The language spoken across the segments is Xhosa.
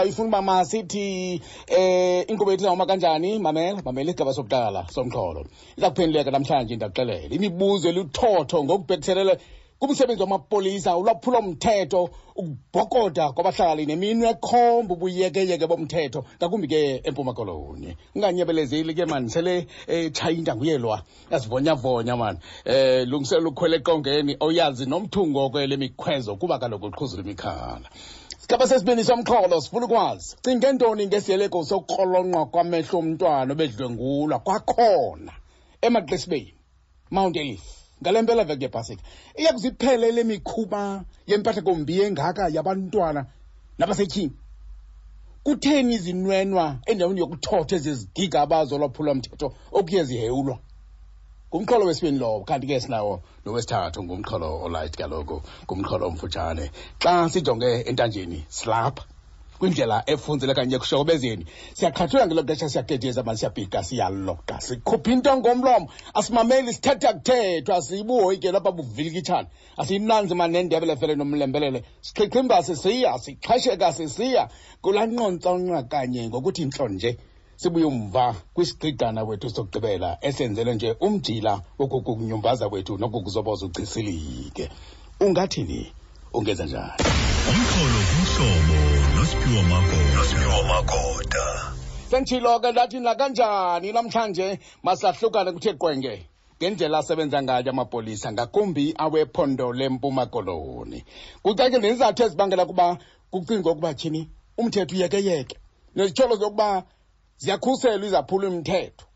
Ifuna uba masithi inkqubo yethu izawuma kanjani. Mamela, mamela isigaba sokuqala somxholo iza kuphenduleka namhlanje. Ndakuxelela imibuzo eluthotho ngokubhekiselele kumsebenzi wamapolisa, ulwaphulomthetho, ukubhokoda kwabahlali neminwe ekhomba ubuyekeyeke bomthetho, ngakumbi ke eMpuma Koloni. Unganyebelezeli ke mani, sele etshaya intanguyelwa, yazivonyavonya mani, lungiselela ukhwela eqongeni oyazi nomthungo kwele mikhwezo, kuba kaloku uqhuzula imikhala. Sigaba sesibini somxholo sifuna ukwazi, cinge ntoni ngesiyeleko sokukrolonqwa kwamehlo omntwana obedlwengulwa kwakhona emaXesibeni, Mount Elif, ngale mpela veki yepasika? Iya kuziphele le mikhuba yempathakombi engaka yabantwana nabasetyhini? Kutheni izinwenwa endaweni yokuthotha ezi zigigaba zolwaphulomthetho okuye zihewulwa? Ngumxholo wesibini lowo. Kanti ke sinawo nowesithathu, ngumxholo olight kaloku, ngumxholo omfutshane. Xa sijonge entanjeni, silapha kwindlela efunzele kanye ekushokobezeni, siyaqhathula ngelo xesha, siyagedeza mani, siyabhika, siyaloqa, sikhupha into ngomlomo, asimameli, sithetha kuthethwa, sibuhoyikelo apha buvilikitshana, asiyinanzi mani nendebele fele nomlembelele, sixhichimba sisiya, sixhesheka sisiya kulaa nqontsonqa kanye ngokuthi ntlo nje. Sibuye umva kwisigqigqana wethu sokugqibela esenzele nje umjila wokukunyumbaza kwethu nokukuzoboza uchisilike. Ungathini? Ungenza njani? Umxholo kumhlobo noSiphiwo Magoda. Nosiphiwo Magoda. Senditshilo ke, ndathi nakanjani namhlanje masahlukane kuthe qwenge ngendlela asebenza ngayo amapolisa, ngakumbi awephondo leMpuma Koloni. Kucacile nezizathu ezibangela ukuba kucingwe ukuba tyhini umthetho uyekeyeke, nezityholo zokuba ziyakhuselwa izaphula umthetho,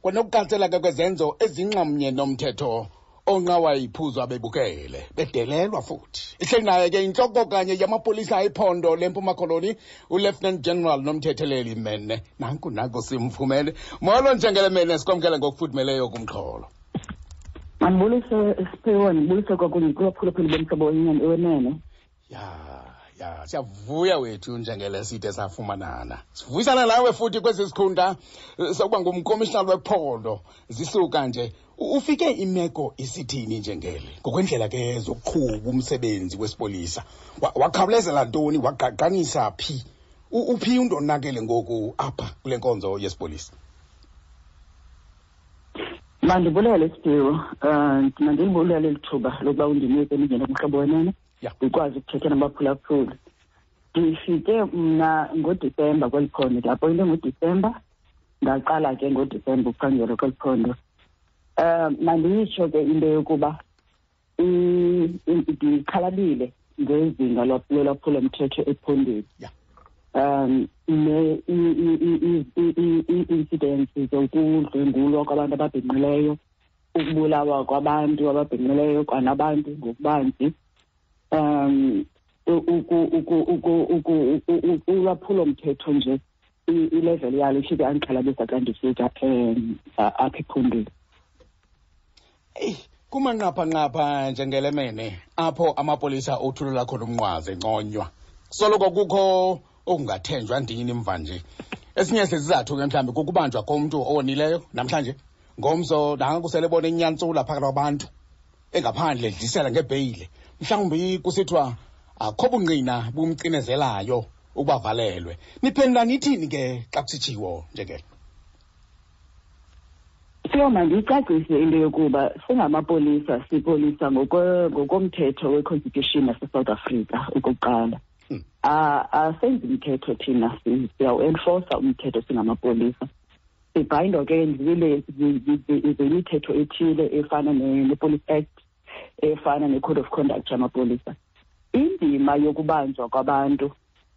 kwanokuqatsela ke kwezenzo ezinxamnye nomthetho onqawa iphuzo abebukele bedelelwa futhi. Ihleli naye ke intloko kanye yamapolisa ephondo leMpuma Koloni, uLieutenant General Nomthetheleli Mene. Nanku nanku simfumene. Molo Njengele Mene, sikwamkele ngokufudumeleyo kumxholo. Mandibulise Siphiwo, ndibulise kwakunye kubaphulaphuli bomhlobo wenene. Ya, siyavuya wethu njengele side safumanana, sivuyisana nawe futhi kwesi sikhundla sokuba ngumkomishinala wephondo. Zisuka nje, ufike imeko isithini njengele ngokwendlela ke zokuqhuba umsebenzi wesipolisa? Wakhawulezela ntoni, wagqagqanisa phi? Uphi undonakele ngoku apha kule nkonzo yesipolisa? Mandibulele Siphiwo, mandilibulele eli thuba lokuba undinike ndingene kumhlobo wenene, ndikwazi ukuthetha nabaphulaphuli. Ndifike mna ngoDisemba kweli phondo, ndiapoyinte ngoDisemba, ndaqala ke ngoDisemba ukuphangela kweli phondo. Mandiyitsho ke into yokuba ndixhalabile ngezinga lolwaphulomthetho ephondweni. Ne ii-incidents zokudlwengulwa kwabantu ababhinqileyo, ukubulawa kwabantu ababhinqileyo kwanabantu ngokubanzi, ulwaphulomthetho nje, ilevel yalo ifike andixhalabisa xa ndifika apha ephondweni. Eyi, kumanqaphanqapha njengelemene apho amapolisa othulula khona umnqwazi enconywa, soloko kukho okungathenjwa ndini mva nje. Esinye sezizathu ke mhlawumbi kukubanjwa komntu owonileyo namhlanje, ngomso nanku sele bona inyantsula phakathi kwabantu engaphandle edlisela ngebheyile, mhlawumbi kusithiwa akho bungqina bumcinezelayo ukuba valelwe. Niphendula nithini ke xa kusitshiwo njengelo? Sio, mandiyicacise into yokuba singamapolisa sipolisa ngokomthetho we-constitution yaseSouth Africa okokuqala. Asenzi mthetho thina, siyawu-enforca umthetho singamapolisa. Sibhayindwa ke zimithetho ethile efana ne-Police Act, efana ne-Code of Conduct yamapolisa. Indima yokubanjwa kwabantu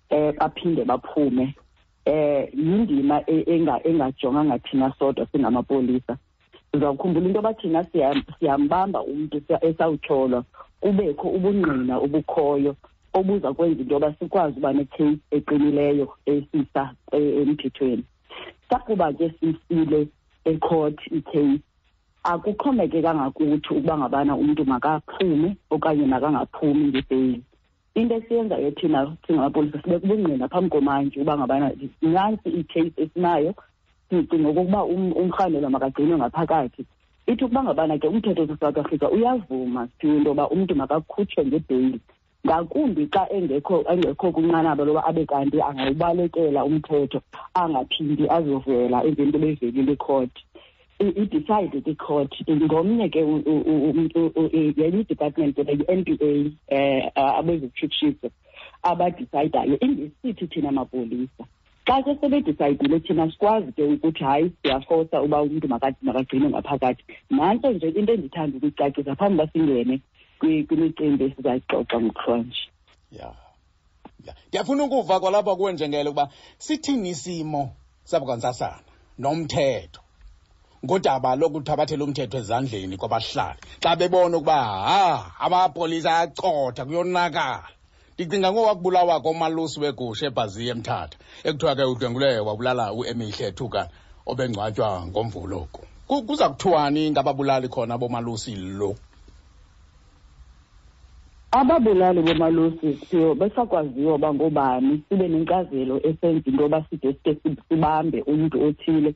baphinde baphume yindima engajonganga thina sodwa singamapolisa. Uzawukhumbula into yoba thina siyambamba umntu esawutyholwa, kubekho ubungqina obukhoyo obuza kwenza into yoba sikwazi uba ne-case eqinileyo esisa emthethweni. Sakuba ke sisile ecourt i-case, akuxhomekekanga kuthi ukuba ngabana umntu makaphume okanye makangaphumi ngebheyili. Into esiyenzayo thina singamapolisa, sibeka ubungqina phambi komantyi uba ngabana nantsi i-case esinayo, sicinga okokuba umrhanelwa makagcinwe ngaphakathi. Ithi ukuba ngabana ke umthetho waseSouth Africa uyavuma siphiwe into yoba umntu makakhutshwe ngebheyili. Ngakumbi xa engekho kwinqanaba loba abe kanti angawubalekela umthetho, angaphindi azovela emveni koba evelile ikhoti. I-decide ke ikhoti. Ngomnye ke yenye i-department ke yi-N P A, abezokutshutshiso abadisayidayo, ingesithi thina mapolisa. Xa ke sebedisayidile thina sikwazi ke ukuthi hayi, siyafosa uba umntu makagcinwe ngaphakathi. Nantso nje into endithanda ukuyicacisa phambi uba singene kwimicimbi esizayixoxa ngokuhlwanje. Ya. Ndiyafuna ukuva kwalapha kuwe njengele ukuba sithini isimo sabakwantsasana nomthetho ngodaba lokuthabathela umthetho ezandleni kwabahlali xa bebona ukuba ha amapolisa ayacotha, kuyonakala. Ndicinga ngowakubulawa komalusi wegusha eBhaziya eMthatha, ekuthiwa ke udlwengule wabulala uEmihle Thuka obengcwatywa ngoMvulo oku. Kuza kuthiwani ngababulali khona bomalusi lo? Ababulali bomalusi siyo besakwaziwa uba ngoobani, sibe nenkcazelo esenza into yoba side sike sibambe umntu othile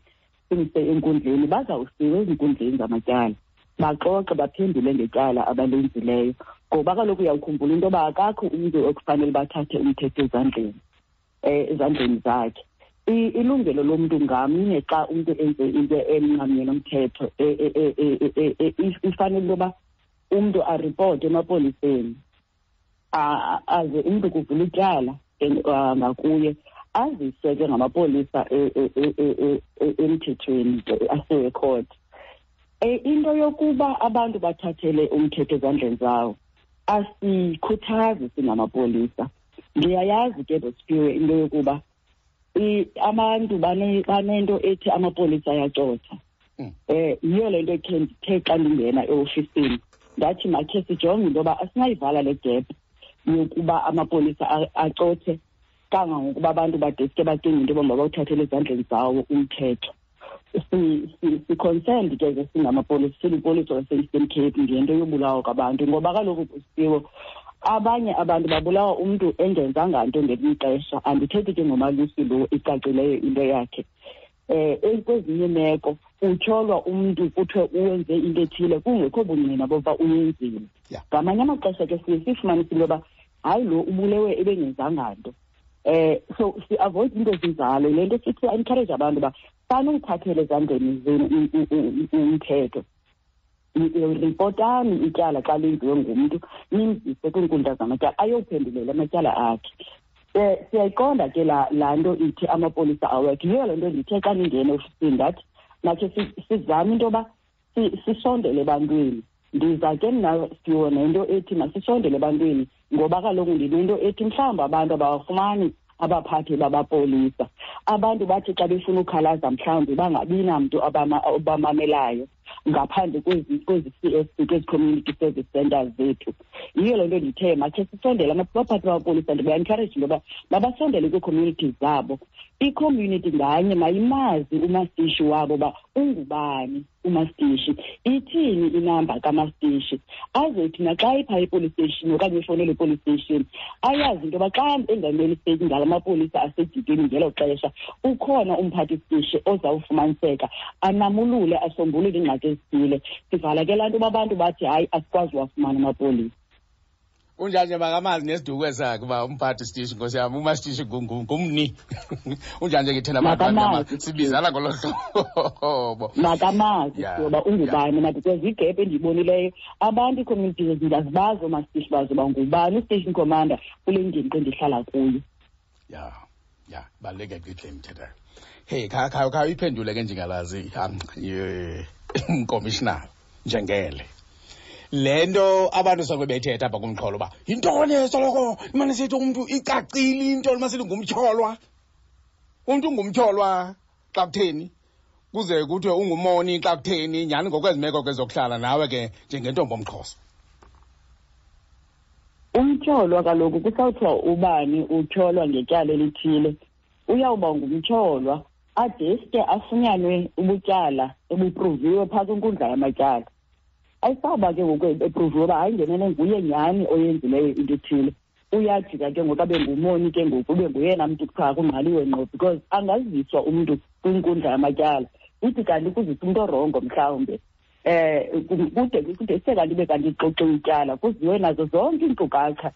simse enkundleni. Bazawusiwa ezinkundleni zamatyala, baxoxe, baphendule ngetyala abalenzileyo, ngoba kaloku uyawukhumbula into yoba akakho umntu ekufanele bathathe umthetho ezandleni zakhe. Ilungelo lomntu ngamnye xa umntu enze into emnxamnye nomthetho, ifanele into yoba umntu aripote emapoliseni, aze umntu kuvula ityala ngakuye, aziswe ke ngamapolisa emthethweni, asiwe court. Into yokuba abantu bathathele umthetho ezandleni zawo asikhuthazi singamapolisa. Ndiyayazi ke, Bosiphiwe, into yokuba abantu banento ethi amapolisa ayacotha. Yiyo le nto khe ndithe xa ndingena eofisini ndathi makhe sijonge into yoba asinayivala le gap yokuba amapolisa acothe kangangokuba abantu badeske bacinge into yoba mabawuthathele ezandleni zawo umthetho. Si-concerned ke ke singamapolisa, silipolisa lase-Eastern Cape, ngento yobulawa kwabantu, ngoba kaloku kusiwo abanye abantu babulawa umntu engenzanga nto ngelinye ixesha. Andithethi ke ngomalusi lo icacileyo into yakhe. Kwezinye imeko utyholwa umntu kuthiwe uwenze into ethile kungekho bungqina bokuba uyenzile. Ngamanye amaxesha ke siye sifumanise into yoba hayi, lo ubulewe ebengenzanga nto. So si-avoid into ezinjalo. Le nto sithi encourage abantu uba sanuyithathela ezandleni zenu umthetho. Ripotani ityala xa lenziwe ngumntu, nimzise kwiinkundla zamatyala ayophendulela amatyala akhe. Siyayiqonda ke laa nto ithi amapolisa awekho. Yiyo le nto ndithe xa ndingena eofisini ndathi makhe sizame into yoba sisondele ebantwini. Ndiza ke mna siwo nento ethi masisondele ebantwini, ngoba kaloku ndinento ethi mhlawumbi abantu abawafumani abaphathi babapolisa. Abantu bathi xa befuna ukhalaza mhlawumbi bangabi namntu obamamelayo ngaphandle kwezi C S C, kwezi community service centers zethu. Yiyo le nto ndithe makhe sisondele abaphathi babapolisa, ndiba-encourage into yoba mabasondele kwii-communities zabo. I-community nganye mayimazi umastishi wabo uba ungubani umastishi, ithini inamba kamastishi, azothi naxa ipha i-police station okanye efowunele i-police station ayazi into yoba xa engameli state ngala mapolisa asedikeni ngelo xesha ukhona umphathi sitishi ozawufumaniseka anamulule, asombulule iingxaki ezithile. Sivala ke laa nto uba abantu bathi hayi, asikwazi uwafumana amapolisa. Unjani nje makamazi nesiduko esakhe uba umphathi sitishi, nkosi yam, umasitishi ngumni. Unjani nje ngithena abantu Makamazi. abamnyama, sibizana ngolo hlobo. Makamazi ngoba ungubani na, because igap endiyibonileyo, abantu ii-communities ndiyazibazi oomasitishi bazo uba ngubani u-station commander kule ngingqi endihlala kuyo. Ya, baluleke gqitha le mthetho. Hey, kha uyiphendule ke njengalazi, commissioner njengele. Le nto abantu soloko bethetha apha kumxholo uba yintoni soloko imane sithi umntu icacile into masithi ngumtyholwa. Umntu ungumtyholwa xa kutheni? Kuze kuthiwe ungumoni xa kutheni? Nyhani ngokwezi meko ke zokuhlala nawe ke njengentombi omXhosa. Umtyholwa kaloku kusawuthiwa ubani utyholwa ngetyala elithile, uyawuba ngumtyholwa adeske afunyanwe ubutyala ebupruviwe phaa kwinkundla yamatyala. Ayisawuba ke ngoku epruviwe uba hayi, ngenene nguye nyhani oyenzileyo into ethile, uyajika ke ngoku abe ngumoni ke ngoku, ube nguyena mntu kuthiwa kungqaliwe ngqo, because angaziswa umntu kwinkundla yamatyala ithi kanti kuziswa umntu orongo mhlawumbe. Kude kude se kanti ibe kanti ixoxiwe ityala, kuziwe nazo zonke iinkcukacha.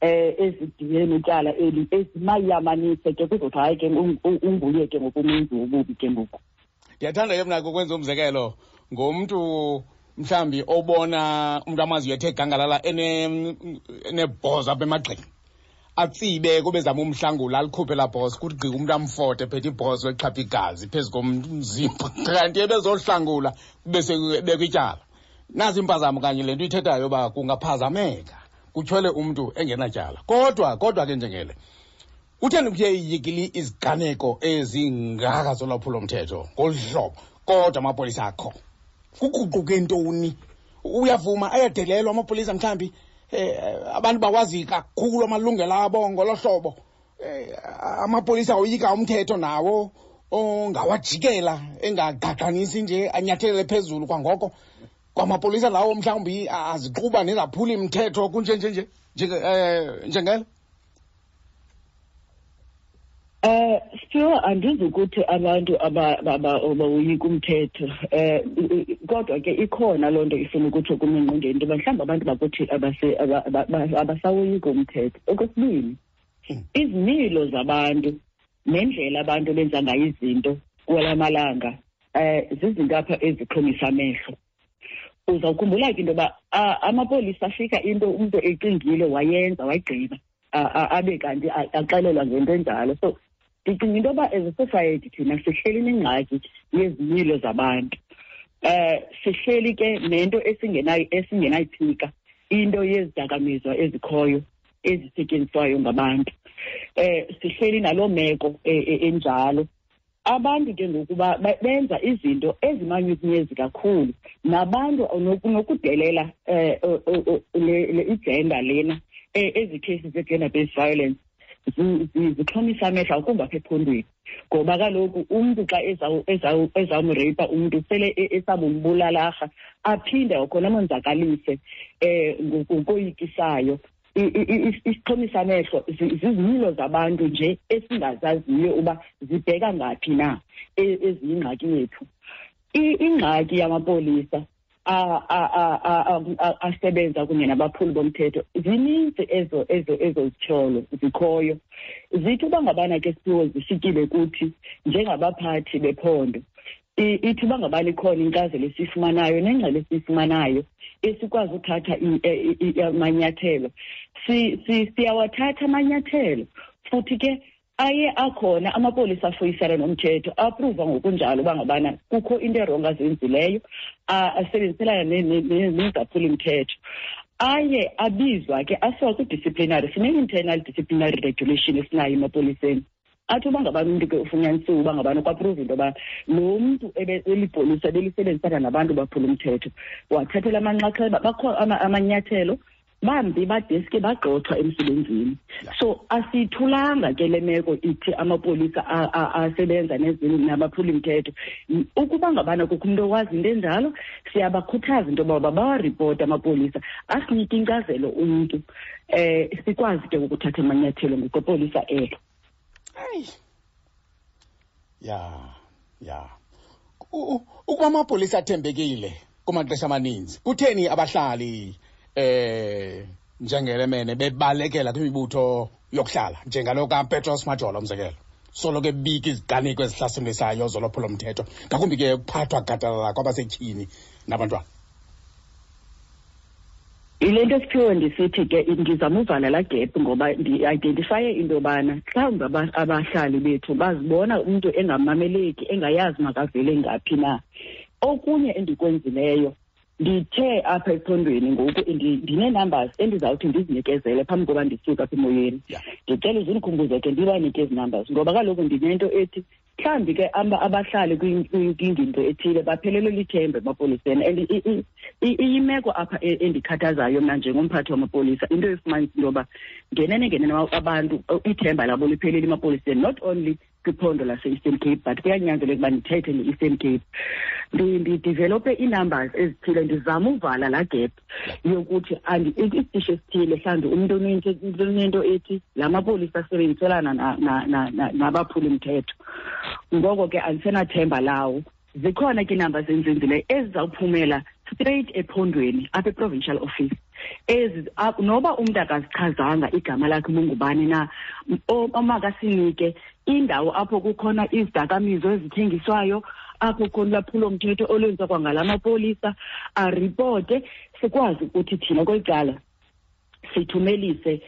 Ezidibene netyala eli ezimayamanise ke kuzothi hayi ke unguye ke ngokumenzi wobubi ke ngoku. Ndiyathanda ke mna ukwenza umzekelo ngomntu mhlawumbi obona umntu amaziyo ethe gangalala enebhozo apha emagxeni, atsibe kube zama umhlangula alikhuphe laa bhozo, kuthi gqi umntu amfote ephethe ibhozo exhapha igazi phezu komzimba, kanti ebezohlangula kube sekubekwa ityala. Nazi impazamo kanye le nto ithethayo uba kungaphazameka kutyhole umntu engenatyala. Kodwa ke njengele, kutheni kuye iyekile iziganeko ezingaka zolwaphulomthetho ngolu hlobo kodwa amapolisa akho? Kuguquke ntoni? Uyavuma ayadelelwa amapolisa mhlawumbi, abantu bawazi kakhulu amalungelo abo ngolo hlobo. Amapolisa oyika umthetho nawo ongawajikela engagqagqanisi nje anyathelele phezulu kwangoko. Kwamapolisa lawo mhlawumbi aziquba nezaphula imithetho kunje nje nje njengelo. Sure, andizukuthi abantu abawoyika umthetho, kodwa ke ikhona loo nto ifuna ukutsho kum engqondweni into yoba mhlawumbi abantu bakuthi abasawoyiki umthetho. Okwesibini, izimilo zabantu nendlela abantu benza ngayo izinto kwala malanga, zizinto apha ezixhomisa amehlo. Uzawukhumbula ke into yoba amapolisa afika into umntu ecingile wayenza wayigqiba, abe kanti axelelwa ngento enjalo. So ndicinga into yoba as a society thina sihleli nengxaki yezimilo zabantu. Sihleli ke nento esingenayiphika, into yezidakamizwa ezikhoyo ezisetyenziswayo ngabantu. Sihleli naloo meko enjalo. Abantu ke ngoku benza izinto ezimanyukunyezi kakhulu, nabantu nokudelela le igender lena, ezi cases ze-gender based violence zixhomisa amehlo akumbi apha ephondweni, ngoba kaloku umntu xa ezawumreyipa umntu sele esabumbulalарha, aphinde kwakhona amonzakalise ngokoyikisayo. Isixhomisa amehlo zizimilo zabantu nje esingazaziyo uba zibheka ngaphi na, eziyingxaki yethu. Ingxaki yamapolisa asebenza kunye nabaphuli bomthetho, zininzi ezo zityholo zikhoyo. Zithi uba ngabana ke Siphiwo zifikile kuthi njengabaphathi bephondo, ithi uba ngabana ikhona inkcazelo esiyifumanayo nengxelo esiyifumanayo esikwazi uthatha amanyathelo, siyawathatha amanyathelo. Futhi ke aye akhona amapolisa afuyisana nomthetho, apruva ngokunjalo uba ngabana kukho into erongo azenzileyo, asebenziselana nezaphulimthetho. Aye abizwa ke asiwa kwi-disciplinary. Sine-internal disciplinary regulation esinayo emapoliseni. Athi uba ngabana umntu ke ufunyanisiwe uba ngabana kwapruva into yoba lo mntu elipolisa belisebenzisana nabantu baphula umthetho, wathathela amanxaxheba, bakho amanyathelo, bambi badeske bagxothwa emsebenzini. So asiyithulanga ke le meko ithi amapolisa asebenza nabaphula imithetho. Ukuba ngabana kukho umntu owazi into enjalo, siyabakhuthaza into yoba bawaripota amapolisa, asinike inkcazelo umntu, sikwazi ke ukuthatha amanyathelo ngokwepolisa elo. Hayi. Ya, ya. Ukuba amapolisa athembekile kumaxesha amaninzi, kutheni abahlali njengelemene bebalekela kwimibutho yokuhlala njengalo kaPetros Majola umzekelo, soloko ebika iziganeko ezihlasimlisayo zolwaphulomthetho, ngakumbi ke ukuphathwa gadalala kwabasetyhini nabantwana? Yile nto Siphiwe ndisithi ke ndizama uvala laa gap, ngoba ndi-identifaye into yobana mhlawumbi abahlali bethu bazibona umntu engamameleki, engayazi makavele ngaphi na. Okunye endikwenzileyo, ndithe apha ephondweni ngoku ndinee-numbers endizawuthi ndizinikezele phambi koba ndisuke apha emoyeni. Ndicela uze undikhumbuze ke ndibanike ezi numbers, ngoba kaloku ndinento ethi mhlawumbi ke abahlali kwingingqi ethile baphelelwe lithemba emapoliseni. And iyimeko apha endikhathazayo mna njengomphathi wamapolisa, into efumanisa into yoba ngenene ngenene abantu ithemba labo liphelile emapoliseni, not only kwiphondo lase-Eastern Cape, but kuyanyanzeleka uba ndithethe nge-Eastern Cape. Ndidevelope ii-numbers ezithile, ndizama uvala laa gap yokuthi isitishi esithile mhlawumbi umntu unento ethi la mapolisa asebenziselana nabaphuli-mthetho, ngoko ke andisenathemba lawo. Zikhona ke iinamba zenzenzileyo ezizawuphumela straight ephondweni apha e-provincial office. Ezi noba umntu akazichazanga igama lakhe bungubani na, omakasinike indawo apho kukhona izidakamizwa ezithengiswayo, apho khona ulwaphulomthetho olwenziwa kwangala mapolisa, aripote, sikwazi ukuthi thina kweli cala sithumelise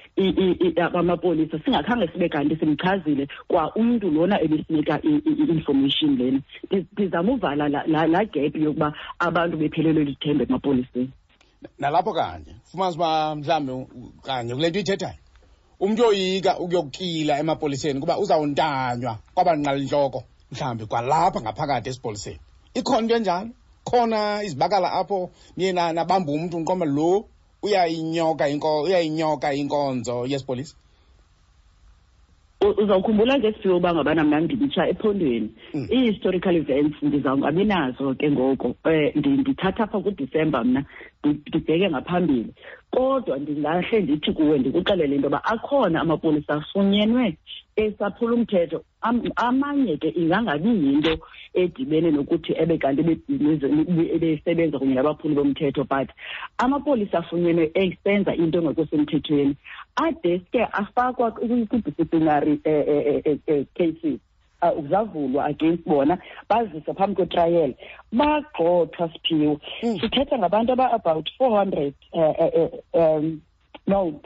amapolisa singakhange sibe kanti simchazile kwa umntu lona ebesinika i-information lena. Ndizama uvala laa gap yokuba abantu bephelelwe lithemba emapoliseni. Nalapho kanye fumanisa uba mhlawumbi kanye kule nto uyithethayo, umntu oyoyika ukuyokila emapoliseni kuba uzawuntanywa kwabanqalintloko mhlawumbi kwalapha ngaphakathi esipoliseni. Ikhona into enjalo? Khona izibakala apho niye nabamba umntu nqoma lo uyayinyoka inkonzo yesipolisa? Uzawukhumbula ke Siphiwe uba ngabana mna ndimtsha ephondweni. Ii-historical events ndizawungabi nazo ke ngoko. Ndithatha apha kuDisemba mna, ndibheke ngaphambili. Kodwa ndingahle ndithi kuwe, ndikuxelele into yoba akhona amapolisa afunyenwe esaphula umthetho. Amanye ke ingangabi yinto edibene nokuthi ebe kanti ebesebenza kunye nabaphuli bomthetho, but amapolisa afunyenwe esenza into engekho semthethweni adeske afakwa kwi-disciplinary cases. Zavulwa against bona, baziswa phambi kwetrial, bagxothwa Siphiwe. Sithetha ngabantu aba-about 400, no,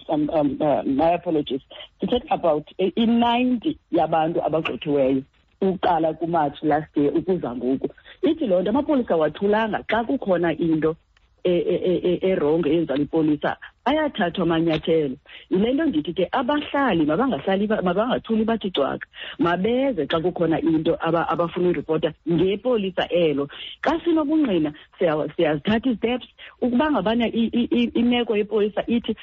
my apologies, sithetha about i-90 yabantu abagxothiweyo uqala kuMarch last year ukuza ngoku. Ithi loo nto amapolisa wathulanga xa kukhona into erongo eyenziwa lipolisa, ayathathwa amanyathelo. Yile nto ndithi ke abahlali mabangahlali, mabangathuli bathi cwaka, mabeze xa kukhona into abafuna uyiripota ngepolisa elo. Xa sinobungqina siyazithatha isteps. Ukuba ngabana imeko yepolisa ithi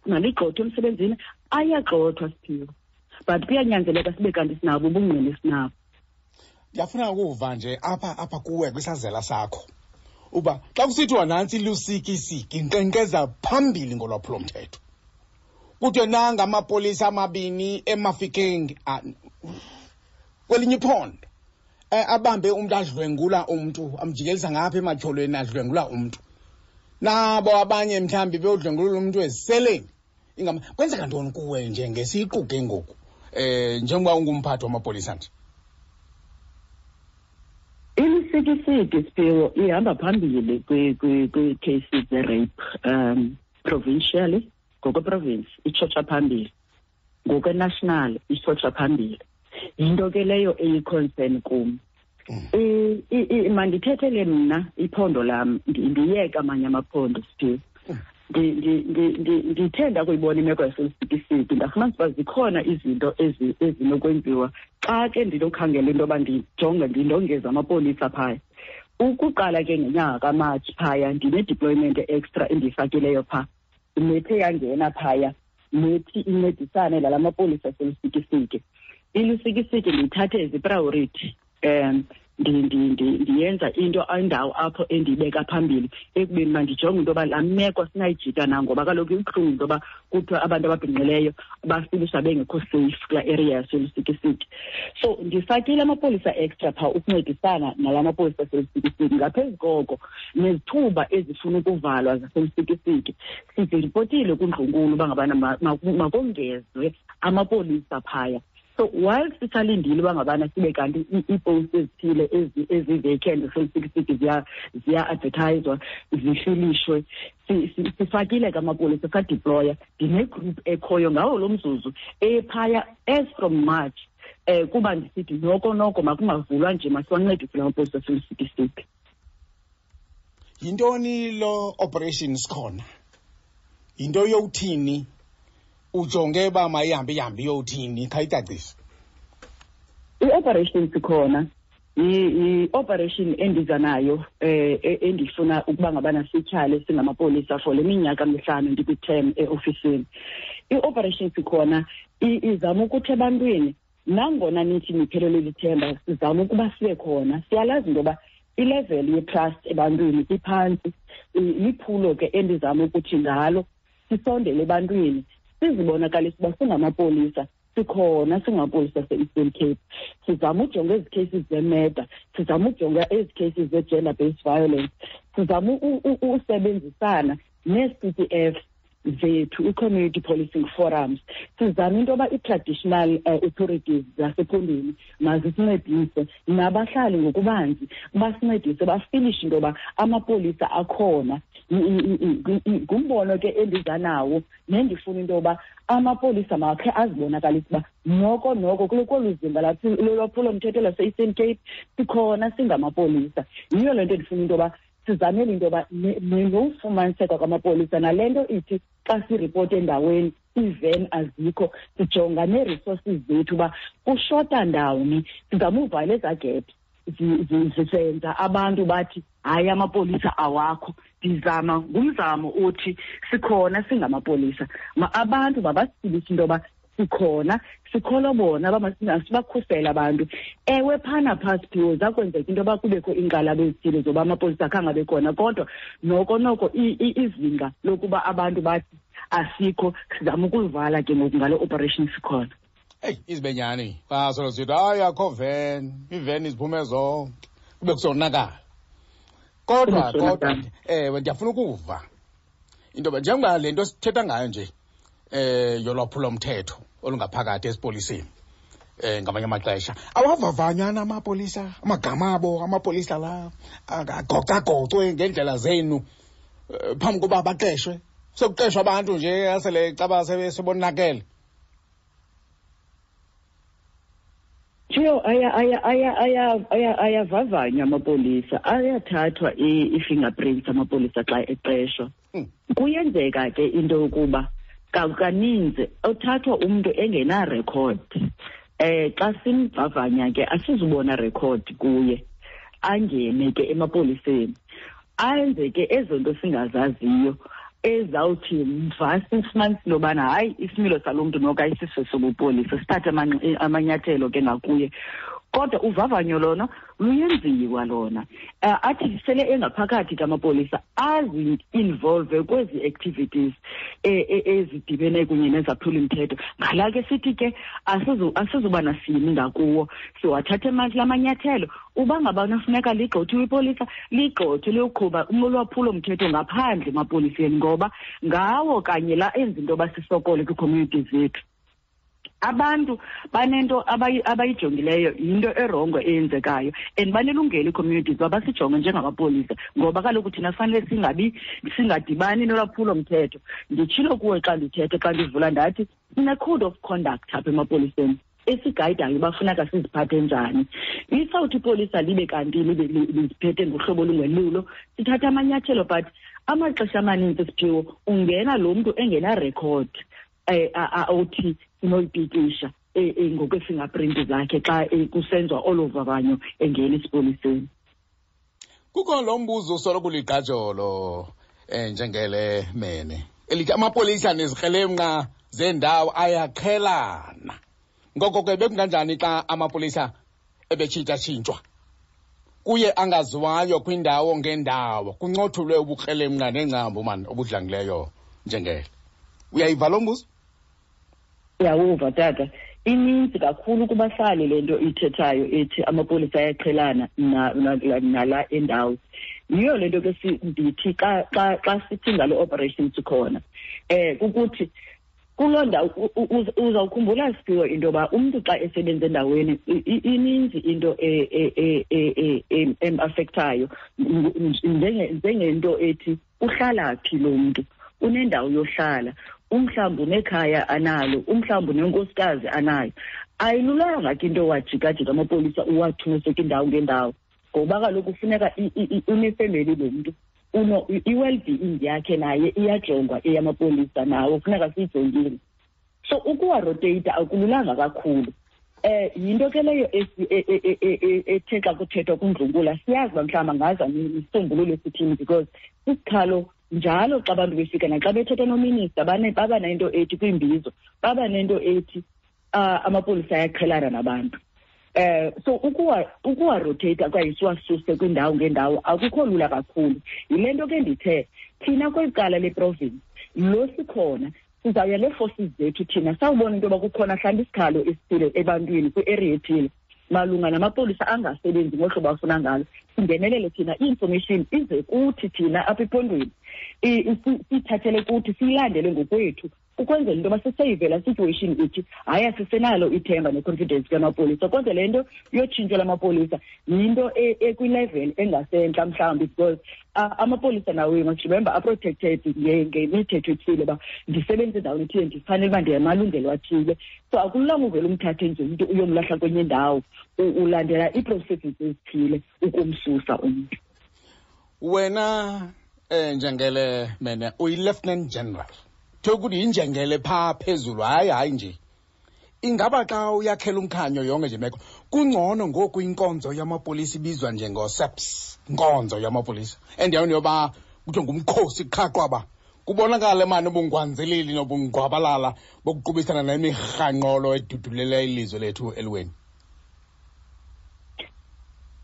maligxothwe emsebenzini, ayagxothwa Siphiwe, but kuyanyanzeleka sibe kanti sinabo ubungqina esinabo. Ndiyafuna ukuva nje apha kuwe kwisazela sakho uba xa kusithiwa nantsi ilusikisiki inkqenkqeza phambili ngolwaphulomthetho, kuthiwe nanga amapolisa amabini eMafikeng kwelinye iphondo, abambe umntu adlwengula umntu, amjikelisa ngapha ematyholweni adlwengula umntu, nabo abanye mhlawumbi beyodlwengulula umntu eziseleni. Kwenzeka ntoni kuwe nje ngesiqu ke ngoku, njengoba ungumphathi wamapolisa nje? Ilisikisiki Siphiwe ihamba phambili kwi-cases ze-rape, provincially, ngokweprovince itshotsha phambili, ngokwe-national itshotsha phambili. Yinto ke leyo eyi-concern kum. Mandithethele mna iphondo lam, ndiyeke amanye amaphondo Siphiwe. Ndithe ndakuyibona imeko yaseLusikisiki, ndafumanisa uba zikhona izinto ezinokwenziwa xa ke ndinokhangela into yoba ndijonge ndindongeze amapolisa phaya. Ukuqala ke ngenyanga kaMatshi phaya ndine-deployment extra endiyifakileyo phaa, nethe yangena phaya nethi incedisane nala mapolisa aseLusikisiki. ILusikisiki ndiyithathe as i-priority, ndiyenza into indawo apho endiyibeka phambili ekubeni uba ndijonge into yoba laa meko sinayijika na, ngoba kaloku ibuhlungu into yoba kuthiwa abantu ababhinqileyo bafilisha bengekho safe kulaa area yaseLusikisiki. So ndifakile amapolisa extra phaa ukuncedisana nala mapolisa aseLusikisiki. Ngaphezu koko nezithuba ezifuna ukuvalwa zaseLusikisiki siziripotile kundlunkulu uba ngabana makongezwe amapolisa phaya. So while sisalindile uba ngabana sibe kanti iipost ezithile ezi-vacant zaseLusikisiki ziya-advertiswa, zifilishwe, sifakile ke amapolisa, sadeploya. Ndinegroup ekhoyo ngawo lo mzuzu ephaya as from March, kuba ndisithi noko noko makungavulwa nje, masiwancedise la mapolisa aseLusikisiki. Yintoni lo operation sikhona? Yinto yowuthini? Ujonge uba mayihambe ihambe iyowuthini? Khayicacise. I-operation sikhona i-operation endiza nayo, endifuna ukuba ngabana sityhale singamapolisa for le minyaka mihlanu ndikwi-term eofisini. I-operation sikhona izama ukuthi ebantwini, nangona nithi niphelelwe lithemba, sizama ukuba sibe khona. Siyalazi into yoba ilevel ye-trust ebantwini iphantsi. Liphulo ke endizama ukuthi ngalo sisondele ebantwini, sizibonakalise uba singamapolisa, sikhona singamapolisa ase-Eastern Cape. Sizama ujonga ezi cases zemurder, sizama ujonga ezi cases ze-gender based violence, sizama usebenzisana nee-CPF zethu, i-community policing forums. Sizama into yoba i-traditional authorities zasephondweni mazisincedise, nabahlali ngokubanzi basincedise, bafilishe into yoba amapolisa akhona. Ngumbono ke endiza nawo nendifuna into yoba amapolisa makhe azibonakalise uba noko noko kolu zinga lolwaphulomthetho lase-Eastern Cape sikhona singamapolisa. Yiyo le nto endifuna into yoba sizamele into yoba nofumaniseka kwamapolisa, nale nto ithi xa siripota endaweni iiven azikho, sijonga nee-resources zethu uba kushota ndawoni, sizama uvala ezaa gap zisenza abantu bathi hayi amapolisa awakho. Ndizama ngumzamo othi sikhona singamapolisa, abantu mabasibise into yoba sikhona, sikholwa bona, sibakhusele abantu. Ewe, phana phaa Siphiwo zakwenzeka into yoba kubekho iinkxalabo ezithile zoba amapolisa akhange abe khona, kodwa noko noko izinga lokuba abantu bathi asikho sizama ukulivala ke ngoku ngale operation sikhona. Eyi, izibenyani basolo sithi hayi akho ven, iiveni ziphume zonke, kube kusonakala. Kodwa kodwa ewe, ndiyafuna ukuva into yoba njengoba le nto sithetha ngayo nje yolwaphulomthetho olungaphakathi esipoliseni, ngamanye amaxesha awavavanywa namapolisa, amagama abo amapolisa la agocagocwe ngendlela zenu phambi koba baqeshwe. Sekuqeshwa abantu nje asele caba sebonakele. Thiyo, ayavavanywa amapolisa, ayathathwa i-fingerprints amapolisa xa eqeshwa. Kuyenzeka ke into yokuba kaninzi othathwa umntu engenarekhodi. Xa simvavanya ke asizubona rekhodi kuye, angene ke emapoliseni, ayenze ke ezo nto singazaziyo ezawuthi mva sifumanise into yobana hayi isimilo salo mntu noko ayisiso sobupolisa, sithathe amanyathelo ke ngakuye. Kodwa uvavanyo lona luyenziwa lona. Athi sele engaphakathi kamapolisa azi-involve kwezi activities ezidibene kunye nezaphuli-mthetho. Ngala ke sithi ke asizuba nasini ngakuwo, siwathathe la manyathelo. Uba ngaba kufuneka ligxothiwe ipolisa, ligxothwe liyoqhuba ulwaphulo-mthetho ngaphandle emapoliseni, ngoba ngawo kanye la enza into yoba sisokole kwii-community zethu. Abantu banento abayijongileyo, yinto erongo eyenzekayo, and banelungelo ii-communities uba basijonge njengamapolisa, ngoba kaloku thina fanele singadibani nolwaphulo-mthetho. Nditshilo kuwe xa ndithetha, xa ndivula ndathi sine-code of conduct apha emapoliseni esigayidayo uba funeka siziphathe njani. Isawuthi ipolisa libe kanti libe liziphethe ngohlobo olungelulo, sithatha amanyathelo, but amaxesha amaninzi Siphiwo ungena lo mntu engenarekhodi othi sinoyipikisha ngokwe-fingerprint zakhe xa kusenziwa olo vavanyo engena esipoliseni. Kukho lo mbuzo usoloko uligqajolo njengele mene elithi amapolisa nezikrelemnqa zendawo ayaqhelana. Ngoko ke bekunganjani xa amapolisa ebetshintshatshintshwa kuye angaziwayo kwindawo ngendawo, kuncothulwe ubukrelemnqa nengcambu mani obudlangileyo njengele? Uyayiva lo mbuzo? Uyawuva tata. Ininzi kakhulu kubahlali le nto ithethayo ethi amapolisa ayaqhelana nala endawo. Yiyo le nto ke ndithi xa sithi ngalo operation sikhona, kukuthi kuloo ndawo uzawukhumbula Siphiwo into yoba umntu xa esebenza endaweni ininzi into em-affectayo, njengento ethi uhlala phi lo mntu, unendawo yohlala, umhlawumbi unekhaya analo, umhlawumbi unenkosikazi anayo. Ayilulanga ke into wajikajika amapolisa uwathuse kwindawo ngendawo, ngoba kaloku kufuneka unefemeli lo mntu, i-well-being yakhe naye iyajongwa eyamapolisa nawo kufuneka siyijongile. So ukuwaroteyita akululanga kakhulu. Yinto ke leyo ethe xa kuthethwa kundlunkulu siyazi uba mhlawumbi angaza nesisombululo esithini, because isikhalo njalo xa abantu befika naxa bethetha nominister baba nento ethi kwimbizo, baba nento ethi amapolisa ayaqhelana nabantu. So ukuwa-rotate okanye siwasuse kwindawo ngendawo akukho lula kakhulu. Yile nto ke ndithe thina kweli cala leprovince lo sikhona sizawuya nee-forces zethu thina sawubona into yoba kukhona mhlawumbi isikhalo esithile ebantwini kwi-area ethile malunga namapolisa angasebenzi ngohlobo afuna ngalo, singenelele thina, i-information ize kuthi thina apha ephondweni. Siyithathele kuthi, siyilandele ngokwethu, ukwenzela into yoba siseyive laa situation ithi hayi, asisenalo ithemba ne-confidence kamapolisa. Kodwa le nto yotshintsho lamapolisa yinto ekwilevel engasentla mhlawumbi, because amapolisa nawo, you must remember, aprotected ngemithetho ethile, uba ndisebenze endaweni ethile, ndifanele uba ndiyamalungelo athile. So akululanga uvele umthathe nje umntu uyomlahla kwenye indawo. Ulandela ii-processes ezithile ukumsusa umntu. Wena njengele mene uyi-lieutenant general, kuthiwa ukuthi yinjengele phaa phezulu. Hayi, hayi nje, ingaba xa uyakhela umkhanyo yonke nje meko, kungcono ngoku inkonzo yamapolisa ibizwa njengo-SAPS, inkonzo yamapolisa, endaweni yoba kuthiwe ngumkhosi qha qwaba, kubonakale mani ubungwanzeleli nobungqwabalala bokuqubisana nemirhanqolo edudulela ilizwe lethu eliweni?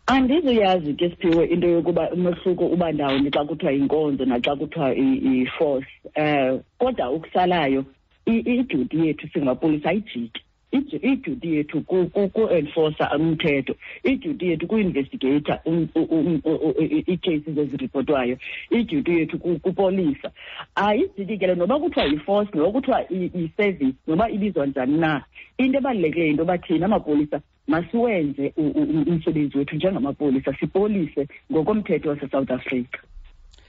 Andizuyazi ke, Siphiwe, into yokuba umehluko uba ndawoni xa kuthiwa yinkonzo naxa kuthiwa i-force, kodwa ukusalayo iduty yethu singapolisa ayijiki. Iduty yethu ku-enforcer umthetho, iduty yethu ku-investigata ii-cases eziripotwayo, iduty yethu kupolisa ayijiki ke le, noba kuthiwa yi-force, noba kuthiwa i-service, noba ibizwa njani na. Into ebalulekileyo yinto yoba thina amapolisa masiwenze umsebenzi wethu njengamapolisa, sipolise ngokomthetho waseSouth Africa.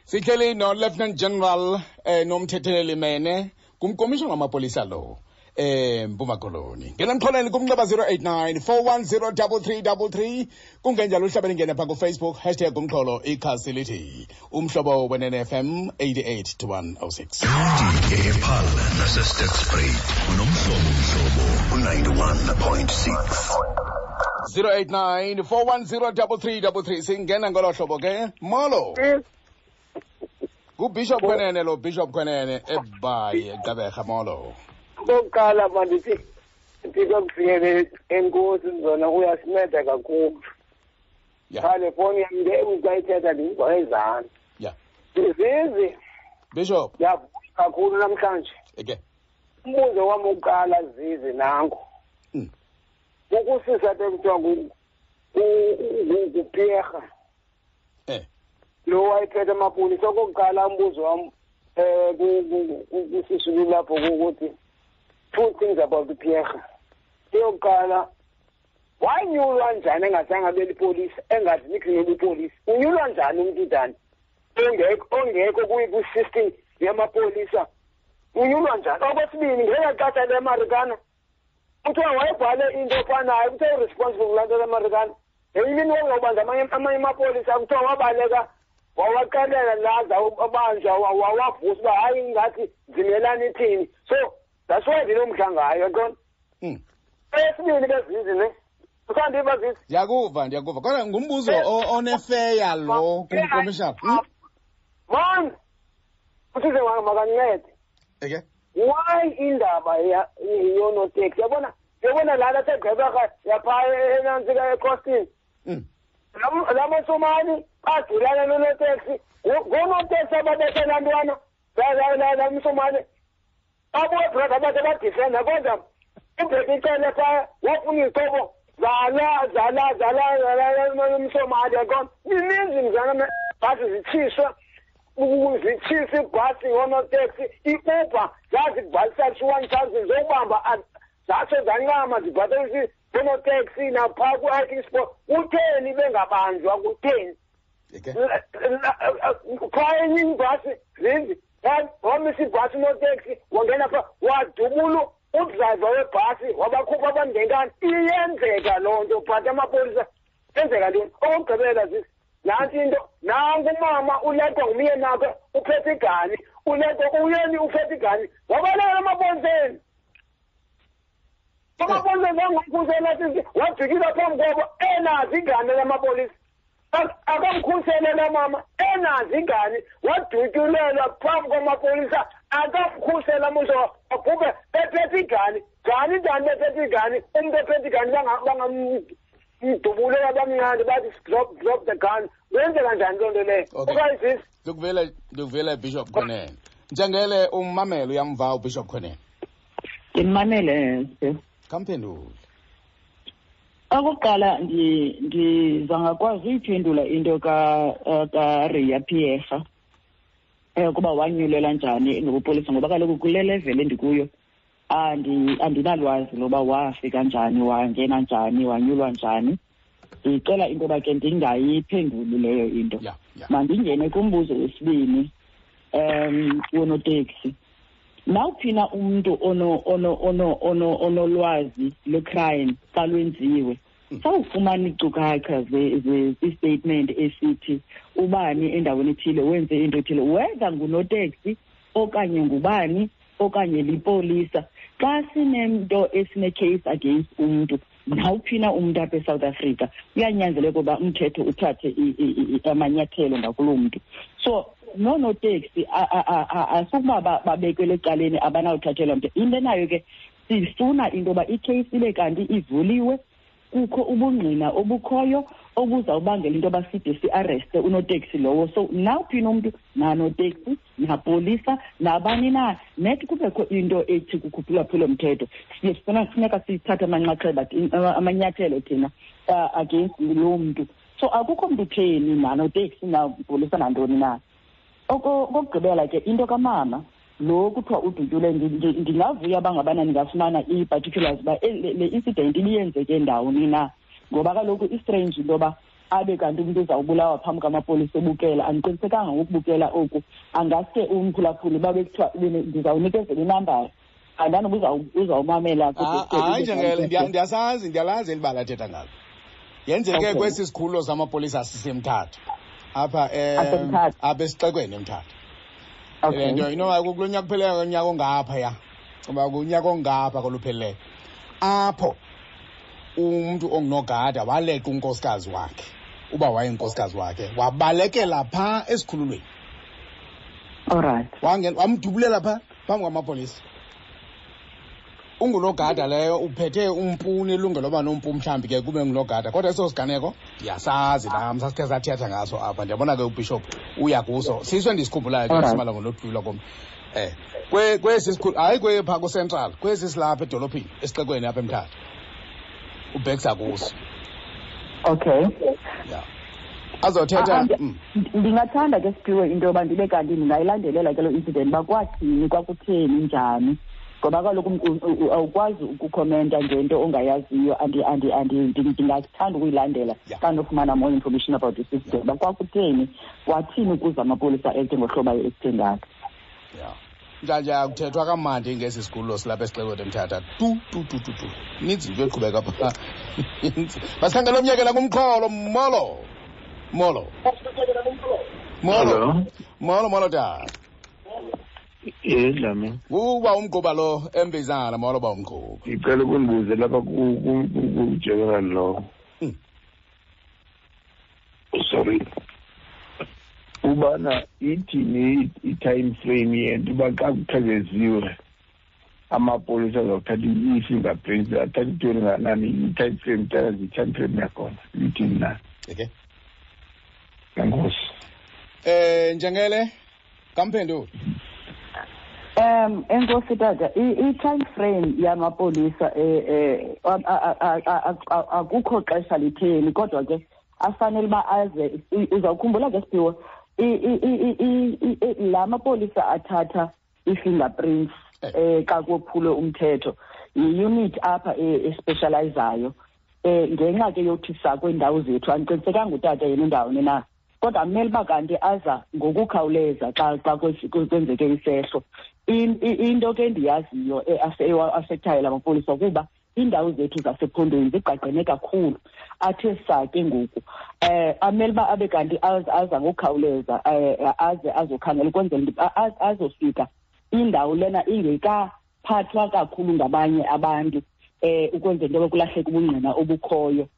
Sihleli no-Lieutenant General Nomthetheleli Mene, ngumkomishona wamapolisa lo Mpuma Koloni. Ngena emxholweni kumnxeba 089 410 3333, kungenjalo uhlabele ingene pha kuFacebook, #umxholo, ikhasi lithi Umhlobo Wenene FM 88 to 106. Epaarl naseSterkspruit unomhlobo, Mhlobo u-91.6. 089 410 3333. Singena ngolo hlobo ke. Molo, nguBishop Kwenene lo, Bishop Kwenene eBhayi, eGqeberha. Molo. Okokuqala mandithi Thixo kufikele, enkosi zona, uyasinceda kakhulu. Cha, le fowuni yam nge xa ithetha ndimva ezantsi. Zizi. Bishop. Ndiyavuya kakhulu namhlanje. Umbuzo wam wokuqala, Zizi, nango. Ukusisa apha ekuthiwa nguPierre. Lo wayephethe amapolisa. Okokuqala umbuzo wam kusisulu lapho kukuthi two things about uPierre. Eyokuqala, wanyulwa njani engazange abe lipolisa, engazi nix nobupolisa? Unyulwa njani umntu njani ongekho kwi-system yamapolisa? Unyulwa njani? Okwesibini, ngela xesha leMarikana kuthiwa wayebhale into efanayo, kuthiwa uresponsible kulaa nto leMarikana. Ngenye imini wawuzawubanjwa amanye amapolisa, kuthiwa wabaleka, wawaxelela laza abanjwa, wawavusa uba hayi, ingathi zimelani ithini. So that's why ndinomdla ngayo, yaqona. Eyesibini ke, Zizi, ne usandiva, Zizi? Ndiyakuva, ndiyakuva, kodwa ngumbuzo onefeya lo kumkomishana. Man, usize makancede. Why indaba yonoteksi, yabona, yabona laa laseGqeberha yaphaa enantsika eCostin, la masomali badulana nonoteksi, ngoonoteksi ababethe laa ntwana la msomali, babuye brother bathe badifenda, kodwa uBheki Cele phaa wafuna izixhobo zala zala zala zala msomali, yaqona. Mininzi mzana, bhasi zitshiswa, zitshisa ibhasi ngoonoteksi, i-Uber zazibhalisa 1000 zokubamba, zatsho zancama zibhatalisa oonoteksi naphaa kwi-hiking sport. Kutheni bengabanjwa? Kutheni? Phaa enye ibhasi, Zinzi, wamisa ibhasi unoteksi, wangena phaa, wadubula udrayiva webhasi, wabakhupha abantu ngenkani. Iyenzeka loo nto, but amapolisa enzeka ntoni? Okokugqibela, Zizi, nantsi into. Nanku umama uleqwa ngumyeni wakhe, uphethe igani, uleqwa uyeni, uphethe igani, wabalekela emapoliseni. Amapolisa zangamkhusela, sisi, wajikisa phambi kwabo enazo igani lamapolisa. Akamkhusele la mama enazo igani, wadutyulelwa phambi kwamapolisa, akamkhusela muso, wabhubhe ephethe igani. Njani, njani bephethe igani? Umntu ephethe igani bangamdubulela, bamnqande, bathi drop, drop the gun. Kwenzeka njani loo nto leyo? Okanye, sisi? Ndikuvele, ndikuvele, Bishop Kwenene. Njengele ummamelo, uyamva uBishop Kwenene? Ndimmamele. Khamphendule. Okokuqala, ndiza ngakwazi uyiphendula into kaRiya Pierre. Ukuba wanyulelwa njani ngobupolisa, ngoba kaloku kule level endikuyo andinalwazi loba wafika njani, wangena njani, wanyulwa njani. Ndicela into yoba ke ndingayiphenduli leyo into. Mandingene kumbuzo wesibini, wonoteksi. Nawuphina umntu onolwazi lwe-crime xa lwenziwe, sawufumana iinkcukacha ze-statement esithi ubani endaweni ethile wenze into ethile, whether ngunoteksi okanye ngubani okanye lipolisa. Xa sinemnto esine-case against umntu, nawuphina umntu apha eSouth Africa, kuyanyanzeleka uba umthetho uthathe amanyathelo ngakuloo mntu. So noonoteksi asukuba babekelwe ecaleni, abanawuthathelwa mntu. Into enayo ke, sifuna into yoba ikheyisi ibe kanti ivuliwe, kukho ubungqina obukhoyo obuzawubangela into yoba side siareste unoteksi lowo. So nawuphina umntu, nanoteksi, napolisa, nabani na, net kubekho into ethi kukhuphulwaphula mthetho, siye sifuna funeka sithathe amanxaxheba, amanyathelo thina against loo mntu. So akukho mntu utheni, nanoteksi, napolisa, nantoni na. Okokugqibela ke, into kamama lo kuthiwa udutyule, ndingavuya uba ngabana ndingafumana ii-particulars uba le incident ibiyenzeke ndawoni na, ngoba kaloku i-strange into yoba abe kanti umntu uzawubulawa phambi kwamapolisa ebukela. Andiqinisekanga ngokubukela oku, angaske umphulaphuli babe kuthiwa ndizawunikezela inambara, andanoba uzawumamela. Hayi, Njengele, ndiyasazi, ndiyalazi eli bala athetha ngalo. Yenzeke kwesi sikhululo samapolisa siseMthatha apha, apha esixekweni eMthatha. Le nto inoba kulo nyaka kupheleyo, unyaka ongaphaya, uba kunyaka ongapha kolupheleleyo, apho umntu ongunogada waleqa unkosikazi wakhe, uba wayenkosikazi wakhe, wabalekela phaa esikhululweni. Wangena wamdubulela phaa phambi kwamapolisa. Ungunogada leyo, uphethe umpu, nelungelo loba nompu, mhlawumbi ke kube ngunogada, kodwa eso siganeko ndiyasazi nam, sasikhe sathetha ngaso apha. Ndiyabona ke ubishop uya kuso, siso endisikhumbulayo ke simalunga nodlula komntu kwesi sikhulu, hayi kwephaa kucentral, kwesi silapha edolophini esixekweni apha eMthatha, ubhekisa kuso. Ya, azothetha. Ndingathanda ke, Siphiwe, into yoba ndibe kanti ndingayilandelela ke loo incident, uba kwathini, kwakutheni, njani, ngoba kaloku awukwazi ukukhomenta ngento ongayaziyo. Ndingathanda ukuyilandela xa ndofumana more information about this incident, uba kwakutheni, kwathini ukuze amapolisa ete ngohlobo aye-acte ngalo. Ya, njanje akuthethwa kamandi ngesi sikhululo silapha esixekweni eMthatha, tu tu tu tu tu. Ininzi into eqhubeka phaa. Masikhangele omnyekela kumxholo. Molo, molo, molo, molo, molo tata. Ye, Dlamini. Uba umgquba lo embizana. Molo, ba umgquba. Ngicela ukundibuze lapha ku-general lo. Sorry. Ubana ithini i-time frame yento uba xa kuqhekeziwe amapolisa azawuthatha i-fingerprints, athatha intoni nganani, i-time frame, tell us i-time frame yakhona ithini na? Okay. Enkosi. Njengele kamphenduli. Enkosi tata, i-time frame yamapolisa, akukho xesha litheni, kodwa ke afanele uba aze. Uzawukhumbula ke, Siphiwe, la mapolisa athatha i-fingerprints xa kophulwe umthetho yi-unit apha especializayo, ngenxa ke yothi sakweendawo zethu. Andiqinisekanga utata yena undawoni na, kodwa kumele uba kanti aza ngokukhawuleza xa kwenzeke isehlo. Into ke endiyaziyo eaffectayo la mapolisa kuba iindawo zethu zasephondweni zigqagqene kakhulu, athe saa ke ngoku amele uba abe kanti aza ngokukhawuleza, aze azokhangela ukwenzela azofika indawo lena ingekaphathwa kakhulu ngabanye abantu, ukwenzela into yoba kulahleke ubungqina obukhoyo.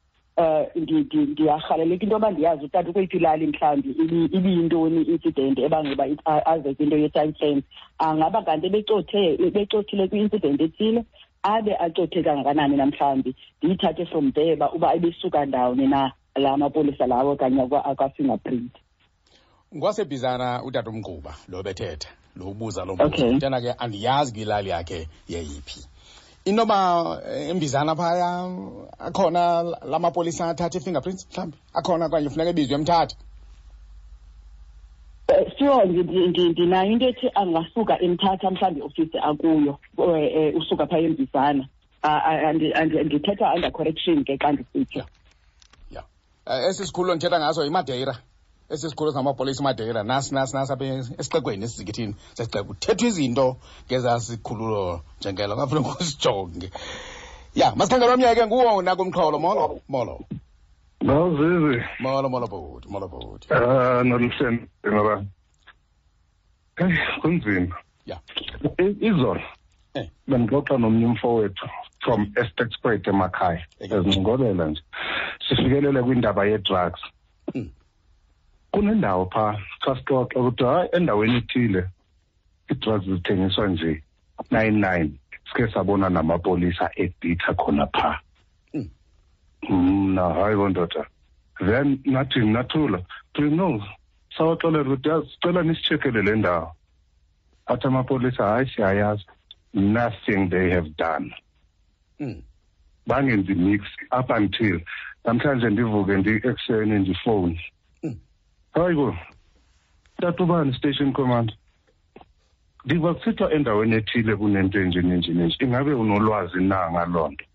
Ndiyarhaleleka into yoba ndiyazi utata ukweyiphi ilali, mhlawumbi ibiyintoni i-incident ebangela uba aze kwinto ye-time frame. Angaba kanti ebecothile kwi-incident ethile, abe acothe kangakanani namhlawumbi, ndiyithathe from there uba ebesuka ndawoni na la mapolisa lawo okanye akwa-fingerprint. Ngwasebhizana utata umgquba lo bethetha, lo ubuza lo mbuzo. Mntana ke andiyazi kwilali yakhe yeyiphi. Inoba embizana phaya akhona la mapolisa athatha i-fingerprints, mhlawumbi akhona, okanye funeka ebizwe eMthatha? Sure, ndinayo into ethi angasuka eMthatha mhlawumbi iofisi akuyo, usuka phaa eMbizana. Ndithetha under correction ke xa ndisitsho. Ya, esi sikhululo ndithetha ngaso yiMadeira. Esi sikhululo singamapolisa iMadeira, nasi nasi nasi apha esixekweni, esizikithini sesixeko. Kuthethwa izinto ngezaa sikhululo njengelo, ngafuneka usijonge. Ya, masikhangele omnye ke nguwo nakumxholo. Molo, molo. Mawuzizi. Molo, molo bhuti, molo bhuti. Ah, noluhleni ngoba. Hey, kunzima. Ya. Izolo. Bendixoxa nomnye umfowethu from Sterkspruit emakhaya. Ezincokolela nje. Sifikelele kwindaba ye-drugs. Kunendawo pha xa sixoxa ukuthi hayi endaweni ethile ii-drugs zithengiswa nje 99, sike sabona namapolisa ebhitha khona pha. Mna hayi bondoda, then nathi nathula no sawaxelela ukuthi yazi sicela nisitshekele le ndawo. Athi amapolisa hayi siyayazi, nothing they have done. Bangenzi mix up until namhlanje ndivuke ndi-ekuseni ndifowuni. Hayi bo, tata ubani station commander, ndiva kusithiwa endaweni ethile kunento enje nenje nenje, ingabe unolwazi na ngaloo nto?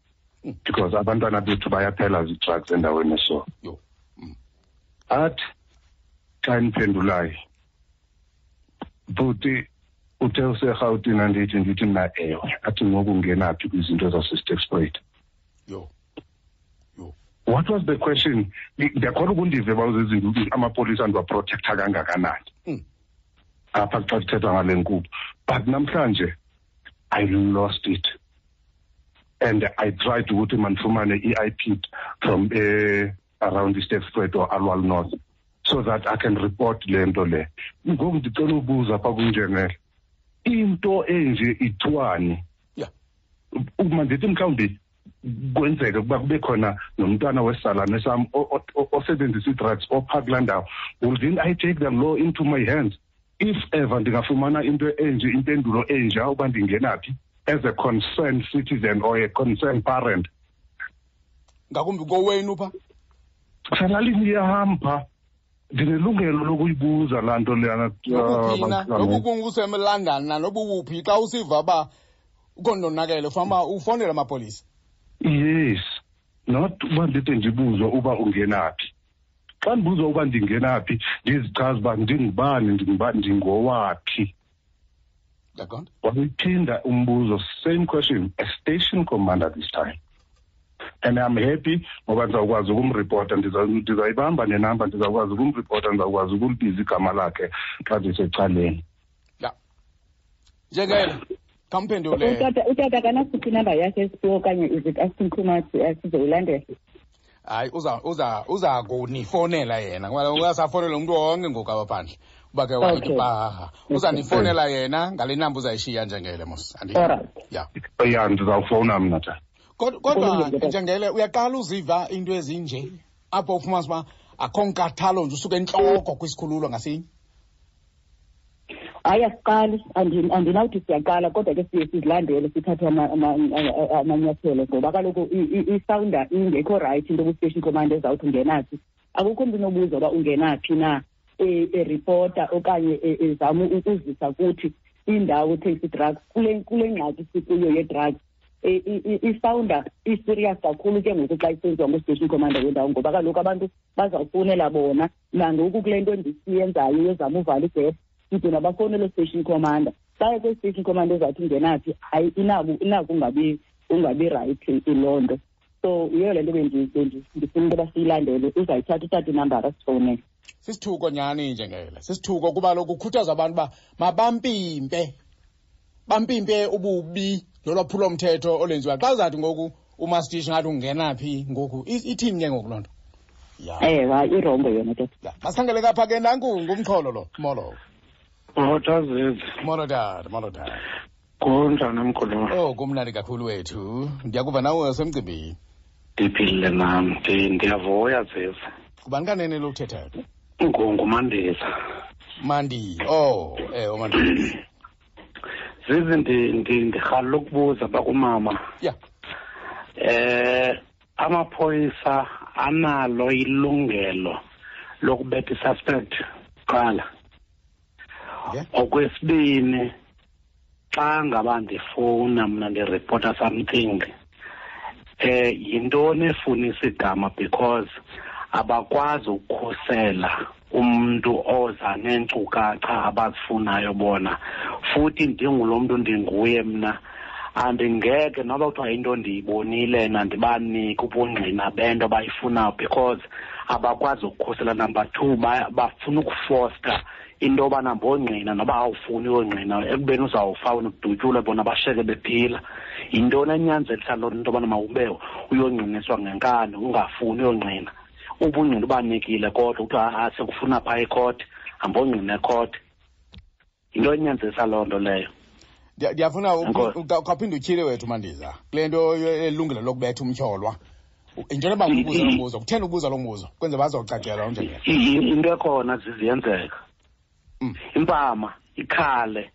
Because abantwana bethu bayaphela zii-drugs endaweni eso. Athi xa ndiphendulayo, bhuti uthe useRhawutini, andithi ndithi mna ewe. Athi ngoku ungenaphi kwizinto zaseSterkspruit? Yho. Yho. What was the question? Ndiyakholwa ukundive uba uzezinto amapolisa ndiwaprotektha kangakanani. Apha xa kuthethwa ngale nkqubo. But namhlanje I lost it. And I tried ukuthi mandifumane i-IP from around iSterkspruit or Aliwal North so that I can report le nto le. Ngoku ndicela ubuza pha kunjengele, into enje ithiwani? Uma ndithi mhlawumbi kwenzeke ukuba kube khona nomntwana wesalane sam osebenzisa ii-drugs opha kulaa ndawo, will then I take the law into my hands if ever ndingafumana into enje, impendulo enja uba ndingenaphi as a concerned citizen or a concerned parent? Ngakumbi kowenu pha? Selalini yam pha, ndinelungelo lokuyibuza laa nto leyana. Nokuphina nokukunguseMlondon nanobuwuphi, xa usiva uba ukondonakele fama ufonele amapolisa. Yes, not uba ndide ndibuzwe uba ungenaphi. Xa ndibuzwa uba ndingenaphi, ndizichaze uba ndingubani, ndingubani, ndingowaphi. Ndiyaqonda. Wayiphinda umbuzo, same question, a station commander this time. And I'm happy ngoba ndizawukwazi ukumripota, ndizayibamba nenamba, ndizawukwazi ukumripota, ndizawukwazi ukulibiza igama lakhe xa ndisecaleni. Ya. Njengele, khamphendule. Utata akanasiphi inamba yakhe esiphiwo okanye is it asking too much sizoyilandela? Hayi, uza kunifonela yena. Ngoba uyasafonela umuntu wonke ngoku apha phandle. Uba ke wayithi pahaha. Uzanifonela yena ngale namba uzayishiya njengele mos. Alright. Ya. Ya, ndizawufowuna mna tata. Kodwa njengele uyaqala uziva into ezinje apho ufumanisa uba akho nkathalo nje usuke entloko kwisikhululo ngasinye. Hayi, asiqali, andinawuthi siyaqala, kodwa ke siye sizilandele sithathe amanyathelo ngoba kaloku isawunda ingekho right into kwi-station commander ezawuthi ungenaphi. Akukho mntu unobuza uba ungenaphi na eripota okanye ezama ukuzisa kuthi indawo ethengisa ii-drugs kule ngxaki sikuyo ye-drugs. Isawunda i-serious kakhulu ke ngoku xa isenziwa ngu-station commander wendawo ngoba kaloku abantu bazawufowunela bona. Nangoku kule nto ndisiyenzayo yozama uvala igephu, side nabafowunela station commander. Baye kwi-station commander ezawuthi ungenaphi, hayi inako ungabi right loo nto. So yiyo le nto ndifuna into yoba siyilandele. Uzayithatha utata inambara asifowunele. Sisithuko nyhani njengele, sisithuko kuba lokhu kukhuthaza abantu uba mabampimpe, bampimpe ububi nolwaphulomthetho olwenziwa. Xa uzathi ngoku umastishi ngathi ungena phi ngoku, ithini ke ngoku loo nto? Ya. Ewe, hayi, irongo yona ke. Ya, masikhangele kapha ke nanku ngumxholo lo. Molo. Molo, Zizi. Molo tata, molo tata. Kunjani mkhulu? Oh, kumnandi kakhulu wethu. Ndiyakuva nawe usemcimbini. Ndiphilile nam, ndiyavuya Zizi. Ngubani kanene lo uthethayo? NguMandisa. Mandi. Oh, uMandisa. Zizi, ndirhalela ukubuza bakumama. Ya. Amaphoyisa analo ilungelo lokubetha i-suspect kuqala. Okwesibini, xa ngaba ndifowuna mna ndiripota something, yintoni efunisa igama, because abakwazi ukukhusela umuntu oza neenkcukacha abazifunayo bona. Futhi ndingulo mntu ndinguye mna, andingeke noba kuthiwa into ndiyibonile nandibanike ubungqina bento abayifunayo, because abakwazi ukukhusela. Number 2, bafuna ukufosta into yobana mbongqina noba awufuni uyongqina, ekubeni uzawufa wena udutyulwe, bona basheke bephila. Yintoni enyanzelisa loo nto yobana mawube uyongqiniswa ngenkani ungafuni uyongqina? Ubungqina ubanikile, kodwa kuthiwa sekufuna phaa ekhoti, hambongqina ekhoti. Yinto enyanzelisa loo nto leyo. Ndiyafuna ukhawuphinde utyhile wethu Mandiza kule nto elungelo lokubetha umtyholwa. Yinto yoba ubuza lo mbuzo, kutheni ubuza lo mbuzo? Kwenze bazocacelwa unjengelo. Into ekhona ziziyenzeka. Impama ikhale,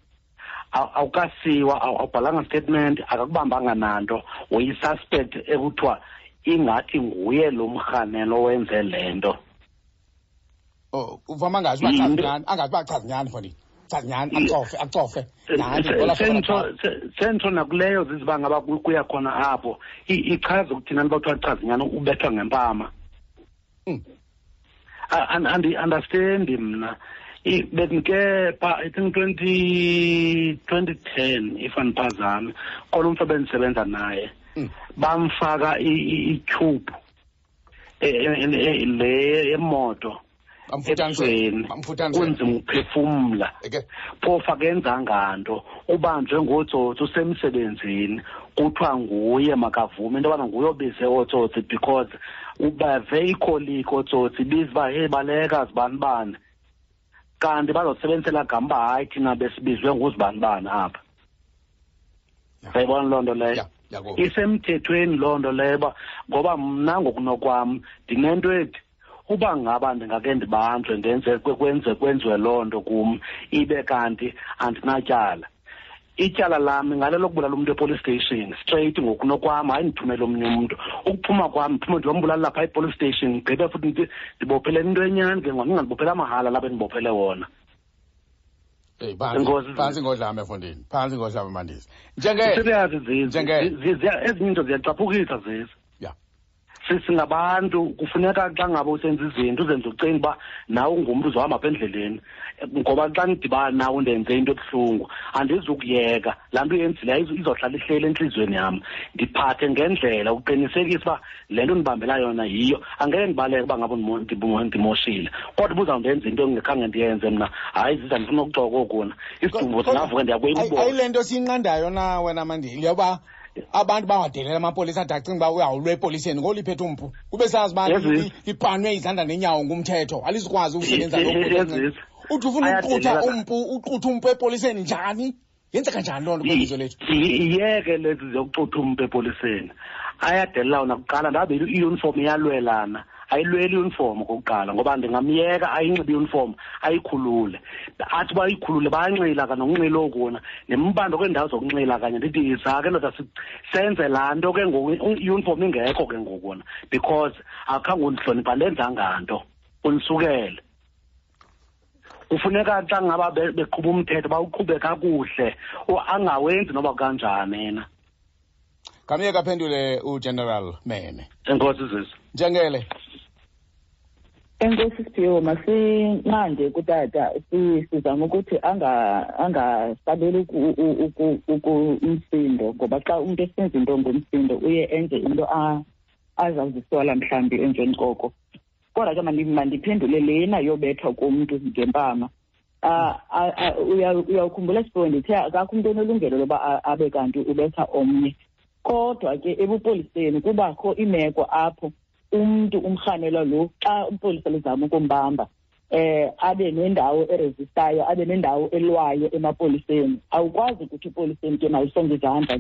awukasiwa, awubhalanga statement, akakubambanga nanto, uyi-suspect ekuthiwa ingathi nguye lo mrhanelo owenze le nto. Oh, uvama angazi uba chaza nyani, angazi uba chaza nyani, mfondini. Chaza nyani, acofe, acofe. Sentsho nakuleyo ziziba ngaba kuya khona apho. Ichaza ukuthi nani bathiwa chaza nyani, ubethwa ngempama. Andi-understand mna. Bendike pha, I think 2010, if andiphazami, khona umntu ebendisebenza naye, bamfaka i-tube le yemoto ebusweni, kunzima ukuphefumla. Phofu akenzanga nto, ubanjwe ngootsotsi usemsebenzini, kuthiwa nguye makavume into yobana nguye obize ootsotsi, because ubave ikholiki ootsotsi ibiza uba hey baleka zibanibani, kanti bazosebenzisela gama uba hayi thina besibizwe nguzibanibani apha. Uyayibona loo nto leyo? Isemthethweni loo nto leyo, uba ngoba mna ngokunokwam ndinento ethi uba ngaba ndingake ndibanjwe ndenze kwenziwe loo nto kum, ibe kanti andinatyala. Ityala lam ngale lokubulala umntu epolice station straight ngokunokwam, hayi ndithumele omnye umntu. Ukuphuma kwam ndiphume ndiyombulala lapha epolice station, ndigqibe futhi ndibophele into enyani ke ngoku, ndingandibophele mahala lapha endibophele wona. Hey, phantsi ngodlame mfondini, phantsi ngodlame Mandisa. Njenge ezinye into ziyacaphukisa zezi. Singabantu kufuneka xa ngaba usenza izinto uzenze ucinga uba nawe ungumntu uzohamba apha endleleni, ngoba xa ndidibana nawe ndenze into ebuhlungu andizukuyeka laa nto uyenzileyo, izohlala ihleli entliziyweni yam. Ndiphathe ngendlela uqinisekisa uba le nto ndibambela yona yiyo, angeke ndibaleke uba ngaba ndimoshile, kodwa uba uzawundenza into engekhange ndiyenze mna, hayi ziza ndifuna ukuxoka okuna isidumbu singavuka ndiyakuyibona. Ayile nto siyinqandayo na wena Mandile, yoba abantu bangadelela amapolisa ade acinga uba uyawulwa epoliseni ngoliphethe umpu, kube sazi uba lipanwe izandla nenyawo ngumthetho, alizukwazi ukusebenza lo. Uthi ufuna ukuqutha umpu, uqutha umpu epoliseni njani? Yenzeka njani loo nto kwelizwe lethu? Iyeke lezi zokuxutha umpu epoliseni. Ayadelela wona kuqala, ndabe i-uniform iyalwelana. Ayilweli i-uniform okokuqala, ngoba ndingamyeka ayinxibe i-uniform ayikhulule. Athi uba ayikhulule bayanxila kanye nokunxila okuna, nembando kweendawo zokunxila kanye, ndithi yiza ke ndoda senze laa nto ke ngoku, i-uniform ingekho ke ngoku wona, because akhange undihloniphe, andenzanga nto, undisukele. Kufuneka xa ngaba beqhuba umthetho bawuqhube kakuhle, angawenzi noba kanjani yena. Kamye aphendule uGeneral Mene. Enkosi Zizi. Njengele. Enkosi Siphiwo, masinqande kutata, sizama ukuthi angasabeli umsindo, ngoba xa umuntu esenza into ngomsindo uye enze into azawuzisola mhlawumbi emveni koko. Kodwa ke mandiphendule lena yobethwa komntu ngempama. Uyawukhumbula Siphiwo, ndithe akakho umntu onelungelo loba abe kanti ubetha omnye. Kodwa ke ebupoliseni kubakho imeko apho umntu umrhanelwa lo xa umpolisa lizama ukumbamba, abe nendawo eresistayo, abe nendawo elwayo emapoliseni. Awukwazi ukuthi epoliseni ke malisonge izandla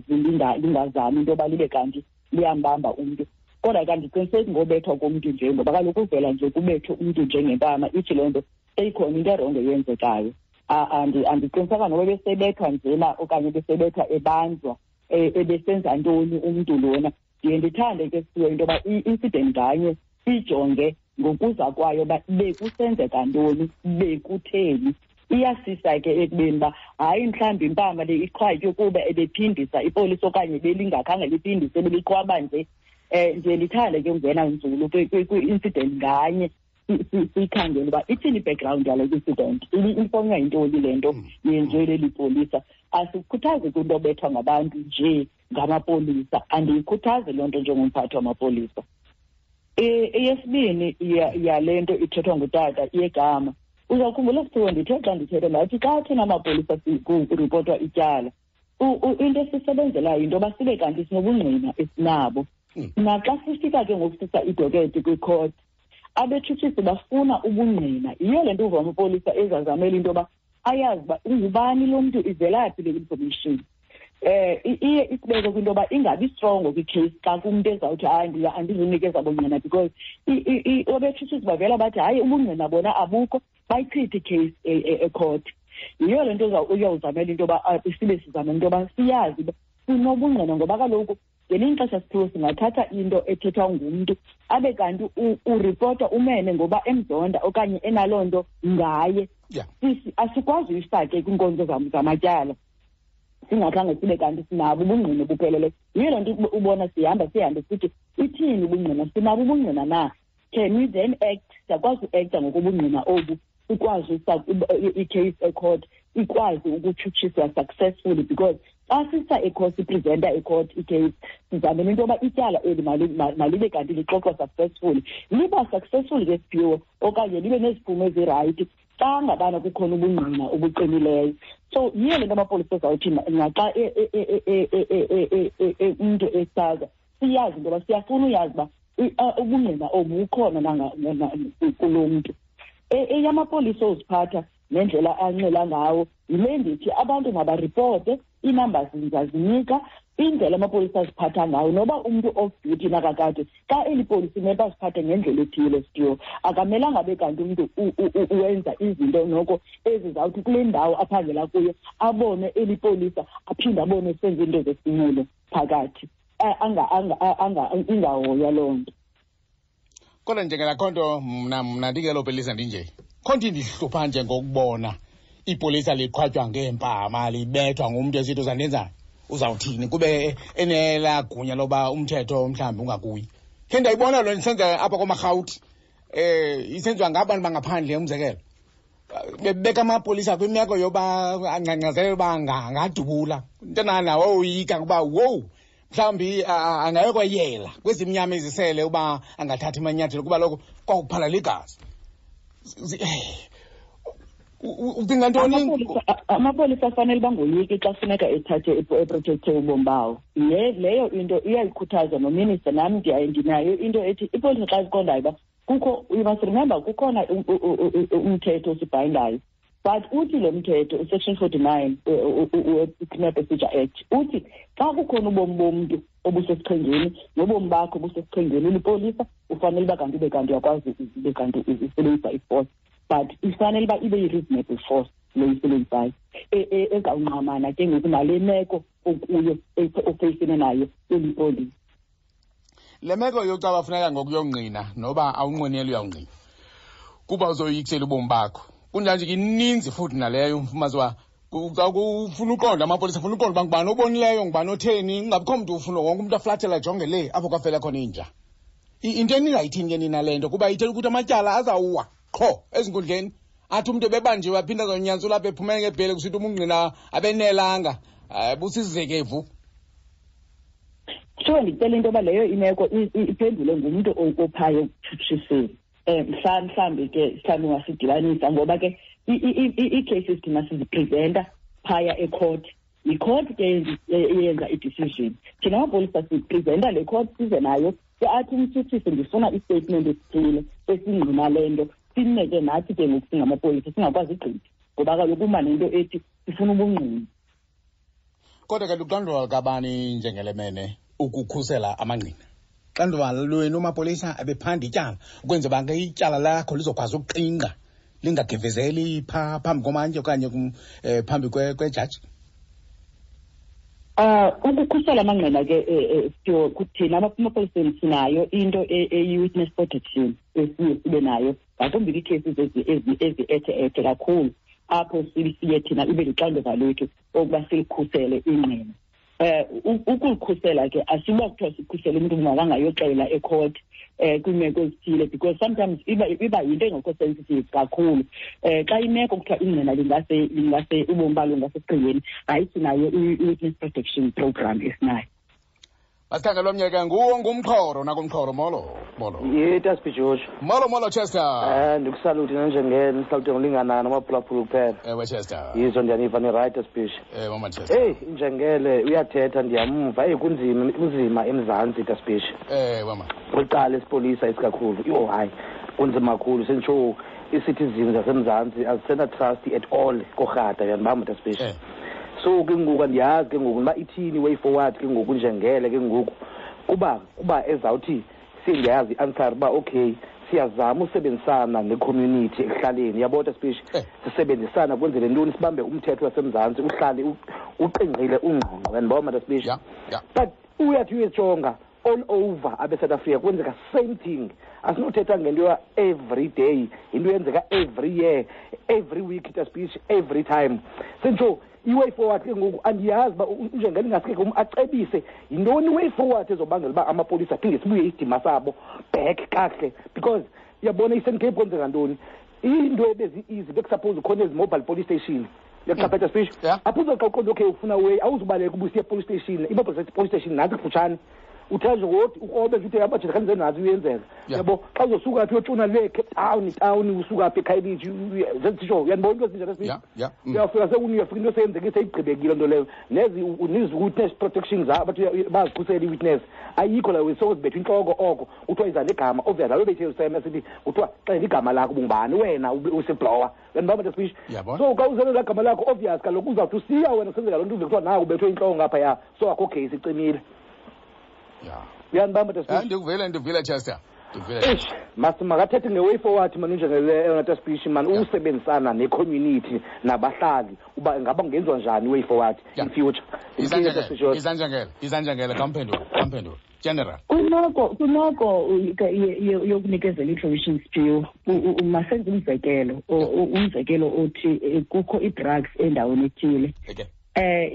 lingazami into yoba libe kanti liyambamba umntu. Kodwa ke andiqiniseki ngobethwa komntu nje, ngoba kaloku uvela nje kubethwe umntu njengempama, ithi loo nto seyikhona into erongo eyenzekayo. Andiqinisekanga noba ebesebethwa njena okanye ebesebethwa ebanjwa, ebesenza ntoni umntu lona. Ndiye ndithande ke Siphiwe into yoba i-incident nganye ijonge ngokuza kwayo uba bekusenzeka ntoni, bekutheni. Iyasisa ke ekubeni uba hayi, mhlawumbi impama le iqhwatywe kuba ebephindisa ipolisa okanye belingakhange liphindise, beliqhwaba nje. Ndiye ndithande ke ungena nzulu kwi-incident nganye, siyikhangele uba ithini i-background yale incident, ifonywa yintoni le nto yenziwe leli polisa. Asikhuthazi kwinto obethwa ngabantu nje ngamapolisa, andiyikhuthazi loo nto njengomphathi wamapolisa. Eyesibini yale nto ithethwa ngutata yegama, uzawukhumbula sithiwe ndithe xa ndithetha ndathi xa thina amapolisa kuripotwa ityala, into esisebenzelayo yinto yoba sibe kanti sinobungqina esinabo. Naxa sifika ke ngoku sisa idoketi kwikhoti, abetshutshisi bafuna ubungqina. Yiyo le nto uva amapolisa ezazamela into yoba ayazi uba ungubani lo mntu, ivelaphi le information. Iye isibeke kwinto yoba ingabi strongo kwi-case xa kumntu ezawuthi hayi andizunikeza bungqina, because abetshutshisi bavela bathi hayi ubungqina bona abukho, bayichithe i-case ekhoti. Yiyo le nto uyawuzamela into yoba sibe sizamela into yoba siyazi uba sinobungqina, ngoba kaloku ngelinye ixesha siphiwe singathatha into ethethwa ngumntu abe kanti uripota umene ngoba emzonda okanye enaloo nto ngaye. Asikwazi uyifake kwiinkonzo zamatyala singakhange sibe kanti sinabo ubungqina obupheleleyo. Yiyo loo nto ubona sihamba sihambe sithi ithini ubungqina, sinabo ubungqina na? Can we then act? Siyakwazi uekta ngokobungqina obu, sikwazi i-case ecourt ikwazi ukutshutshiswa successfully, because xa sisa ecourt, sipresenta ecourt i-case, sizamela into yoba ityala eli malibe kanti lixoxwa successfully. Liba successful ke siphiwo okanye libe neziphumo ezirayithi xa ngabana kukhona ubungqina obuqinileyo. So yiyo le nto amapolisa ezawuthi naxa umntu esaza, siyazi into yoba siyafuna uyazi uba ubungqina obu bukhona kulo mntu. Eyamapolisa oziphatha nendlela anxila ngawo yile ndithi abantu mabaripote, ii-numbers ndizazinika, indlela amapolisa aziphatha ngayo. Noba umntu off duty nakakade, xa eli polisa imele baziphathe ngendlela ethile sityo, akamelanga abe kanti umntu wenza izinto noko ezizawuthi kule ndawo aphangela kuyo abone eli polisa, aphinde abone senza iinto zesinqulo phakathi, ingahoywa loo nto. Kodwa njengelakho nto mna ndingelo polisa ndinje, kho nto indihlupha nje ngokubona ipolisa liqhwatywa ngeempama, libethwa ngumntu esithi uzandenzani, uzawuthini, kube enelaa gunya loba umthetho mhlawumbi ungakuyi. Khe ndayibona loo nto isenza apha komarhawuti, isenziwa ngabantu bangaphandle, umzekelo bebeka amapolisa kwimeko yoba angcangcazele uba angadubula nto woyika ukuba wowu mhlawumbi angayokweyela kwezimnyama ezisele uba angathathi amanyathelo, kuba lokho kwakuphalala igazi. Ucinga ntoni? Amapolisa afanele bangoyiki xa funeka ethathe eprotecthe ubomi bawo. Leyo into iyayikhuthaza nominister, nam ndinayo into ethi ipolisa xa ziqondayo uba kukho, you must remember kukhona umthetho osibhayindayo, but uthi lo mthetho usection 49 we-Criminal Procedure Act uthi xa kukhona ubomi bomntu obusesichengeni nobomi bakho obusesichengeni ulipolisa, ufanele uba kanti ube kanti uyakwazi ube kanti usebenzisa i-force, but ifanele uba ibe yi-reasonable force le uyisebenzisayo ezawungqamana ke ngoku nale meko okuyo ofeyisene nayo ulipolisa. Le meko yokucaba funeka ngokuyongqina noba awunqweneli uyawungqina kuba uzoyikisela ubomi bakho, kunjanje ke ininzi futhi naleyo umfumazi uba ufuna uqonda amapolisa, ufuna uqonda uba ngubani obonileyo, ngubani otheni, kungabikho mntu ufuna wonke umntu aflathela ajonge le apho kwafela khona inja. Into eningayithini ke nina le nto, kuba ithetha ukuthi amatyala azawuwa qho ezinkundleni, athi umntu ebebanjiwe aphinde azonyantsula apha ephumele ngebhele kusithi umungqina abenelanga, busizekevu. Kuthiwa ndicela into yoba leyo imeko iphendule ngumntu ophayo ekutshutshiseni. Mhlawumbi ke mhlawumbi ungasidibanisa, ngoba ke ii-cases thina sizipresenta phaya ecourt. Yicourt ke eyenza i-decision. Thina amapolisa sipresenta le court size nayo, ke athi umtshutshisi ndifuna i-statement esithile esingqina le nto, sineke nathi ke ngoku singamapolisa singakwazi ugqitha, ngoba kaloku uma nento ethi sifuna ubungqina. Kodwa ke luxanduva lukabani njengelemene ukukhusela amangqina? Xanduva lwenu mapolisa ebephanda ityala ukwenzela uba ke ityala lakho lizokwazi ukuqingqa lingagevezeli phaa phambi komantyi okanye phambi kwejaji? Ukukhusela amangqina ke thina amapoliseni sinayo into eyi-witness protection esiye sibe nayo, ngakumbi kwiicases ezi-ethe-ethe kakhulu. Apho siye thina ibe lixanduva lwethu okuba silikhusele ingqina. Ukulikhusela ke asiba kuthiwa sikhusele umntu makangayoxela ecourt kwiimeko ezithile, because sometimes iba yinto engekho sensitive kakhulu. Xa imeko kuthiwa ingqina lingase ubomi balo ngasesichengeni, hayi, sinayo i-witness protection program esinayo. Masikhangele omnye ke, nguwo ngumxhoro nakumxhoro. Molo, molo. Ye, Taspi George. Molo, molo, Chester. Ndikusalute nanjengene, ndisalute ngolinganayo namaphulaphula kuphela. Ewe, Chester. Yizo, ndiyaniva ni-right, Taspi. Ewe, mama Chester. Eyi, injengele uyathetha, ndiyamva. Eyi, kunzima, kunzima eMzantsi, Taspi. Ewe, mama. Kwicala esipolisa isikakhulu, yho hayi, kunzima kakhulu. Senditsho ii-citizens zaseMzantsi azisena-trust at all korhata, uyandibamba, Taspi? So ke ngoku andiyazi ke ngoku uba ithini way forward ke ngoku njengele ke ngoku, kuba ezawuthi sendiyazi i-answer uba okay, siyazama usebenzisana ne-community ekuhlaleni, uyabona, Taspi? Sisebenzisana kwenzele ntoni? Sibambe umthetho waseMzantsi uhlale uqingqile, ungqongqo, uyandibona, Taspi? Yeah. But uyathi uyejonga all over abe-South Africa kwenzeka same thing. Asinothetha ngento ya every day, into yenzeka every year, every week, Taspi, every time. Senditsho i-way forward ke ngoku andiyazi uba njengele ingaske ke acebise yintoni i-way forward ezobangela uba amapolisa aphinde sibuye isidima sabo back kakuhle, because uyabona i-Eastern Cape kwenzeka ntoni, into ebezi-easy bekusuppose ukhona ezi mobile police station, uyaqaphela, Speech? Apho uzoxa uqonda okay ufuna way, awuzubaleka ubusiya police station, i-mobile police station nantsi kufutshane, uthe nje ngodi ukrobe nje uthe abajita khanze nazi uyenzeka. Yabo, xa uzosuka phi uyotshona le Cape Town town, usuka phi eKhayelitsha, zezitsho, uyandibona into ezinjalo, Speech? Yeah. Uyafika uyafika into seyenzekile, seyigqibekile nto leyo. Nezi nezi witness protection zabo bathi bazikhusela i-witness, ayikho la, sozibethwa intloko oko kuthiwa iza negama, obvious lalo bethe useme sithi kuthiwa xela igama lakho, bungubani wena useblower, uyandibamba, Speech? Yabona. So xa uzele laa gama lakho, obvious kaloku uzawuthi usiya wena kusenzeka loo nto, uve kuthiwa nawe ubethwe intloko ngaphaya, so akho case, icimile. Uyandibamba, Speech? Hayi, ndikuvile, ndikuvile, Chester, ndikuvile. Eish, mas makathethe nge-way forward mani njengele eyona Speech mani, usebenzisana ne-community nabahlali, uba ingaba kungenziwa njani i-way forward in future. Izanjengele, izanjengele, izanjengele, kamphendule, kamphendule, general. Kwimeko yokunikezela i-information, Siphiwo, masenze umzekelo, umzekelo othi kukho ii-drugs endaweni ethile.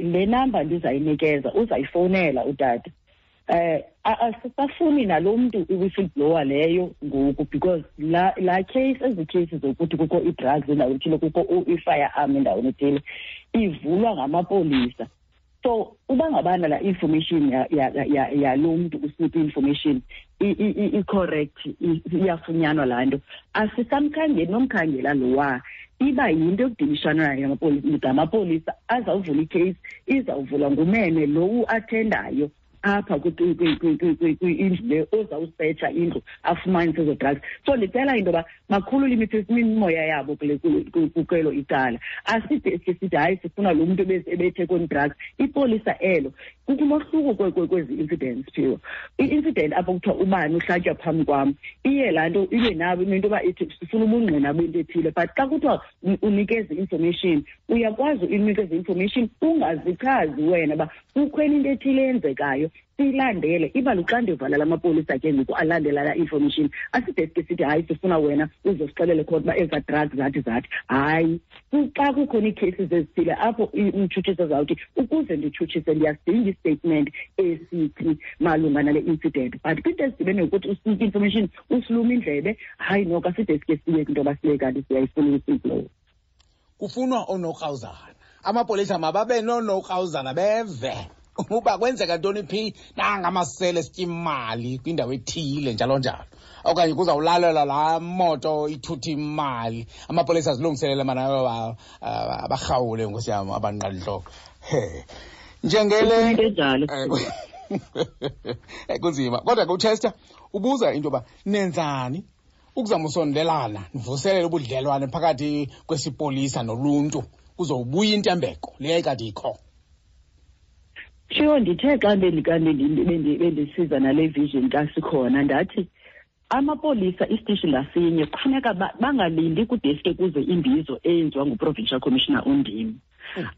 Le number ndizayinikeza uzayifowunela utata. Asisafuni nalo mntu i-whistleblower leyo ngoku, because la case, ezi cases zokuthi kukho ii-drugs endaweni ethile, kukho i-firearm endaweni ethile, ivulwa ngamapolisa. So uba ngabana la information yalo mntu usinika i-information i-correct, iyafunyanwa laa nto, asisamkhangeli nomkhangela lowa, iba yinto yokudilishana nayo ngamapolisa azawuvula icase, izawuvulwa ngumene lo uathendayo apha kwindlu le, ozawusetsha indlu afumanise ezo drugs. So ndicela into yoba bakhulule imimoya yabo kwelo icala. Aside sike sithi hayi, sifuna lo mntu ebethe kwezi drugs. Ipolisa elo, kukho umohluko kwezi incidents, Phiwo. I-incident apho kuthiwa ubani uhlatywa phambi kwam, iye laa nto ibe nabo into yoba ithi sifuna ubungqina bento ethile. But xa kuthiwa unikeze i-information, uyakwazi uyinikeza i-information ungazichazi wena uba kukho enye into ethile eyenzekayo, siyilandele. Iba luxanduva lamapolisa ke ngoku alandela laa information. Aside sike sithi hayi, sifuna wena uzosixelele khona uba ezaa drugs zathi zathi. Hayi, xa kukhona ii-cases ezithile apho umtshutshisi azawuthi ukuze nditshutshise ndiyasidinga istatement esithi malunga nale incident. But kwinto ezidibene nokuthi usinike information usilume indlebe, hayi noko aside sike siye kwinto yoba siye kanti siyayifuna i-whistleblower. Kufunwa oonokrawuzana, amapolisa mababe noonokrawuzana, beve uba kwenzeka ntoni phi, nangamasele esitya imali kwindawo ethile, njalo njalo, okanye kuzawulalelwa laa moto ithutha imali, amapolisa azilungiselele mana abarhawule, nkosi yam, abanqalintloko. He, njengele Into enjalo. Kunzima kodwa ke uChester ubuza into yoba nenzani ukuzama usondelana, nivuselele ubudlelwane phakathi kwesipolisa noluntu, kuzowubuya intembeko le yayikade ikho. Sure, ndithe xa bendisiza nale vision kasikhona, ndathi amapolisa isitishi ngasinye kufuneka bangalindi kudeske kuze imbizo eyenziwa nguprovincial commissioner undim.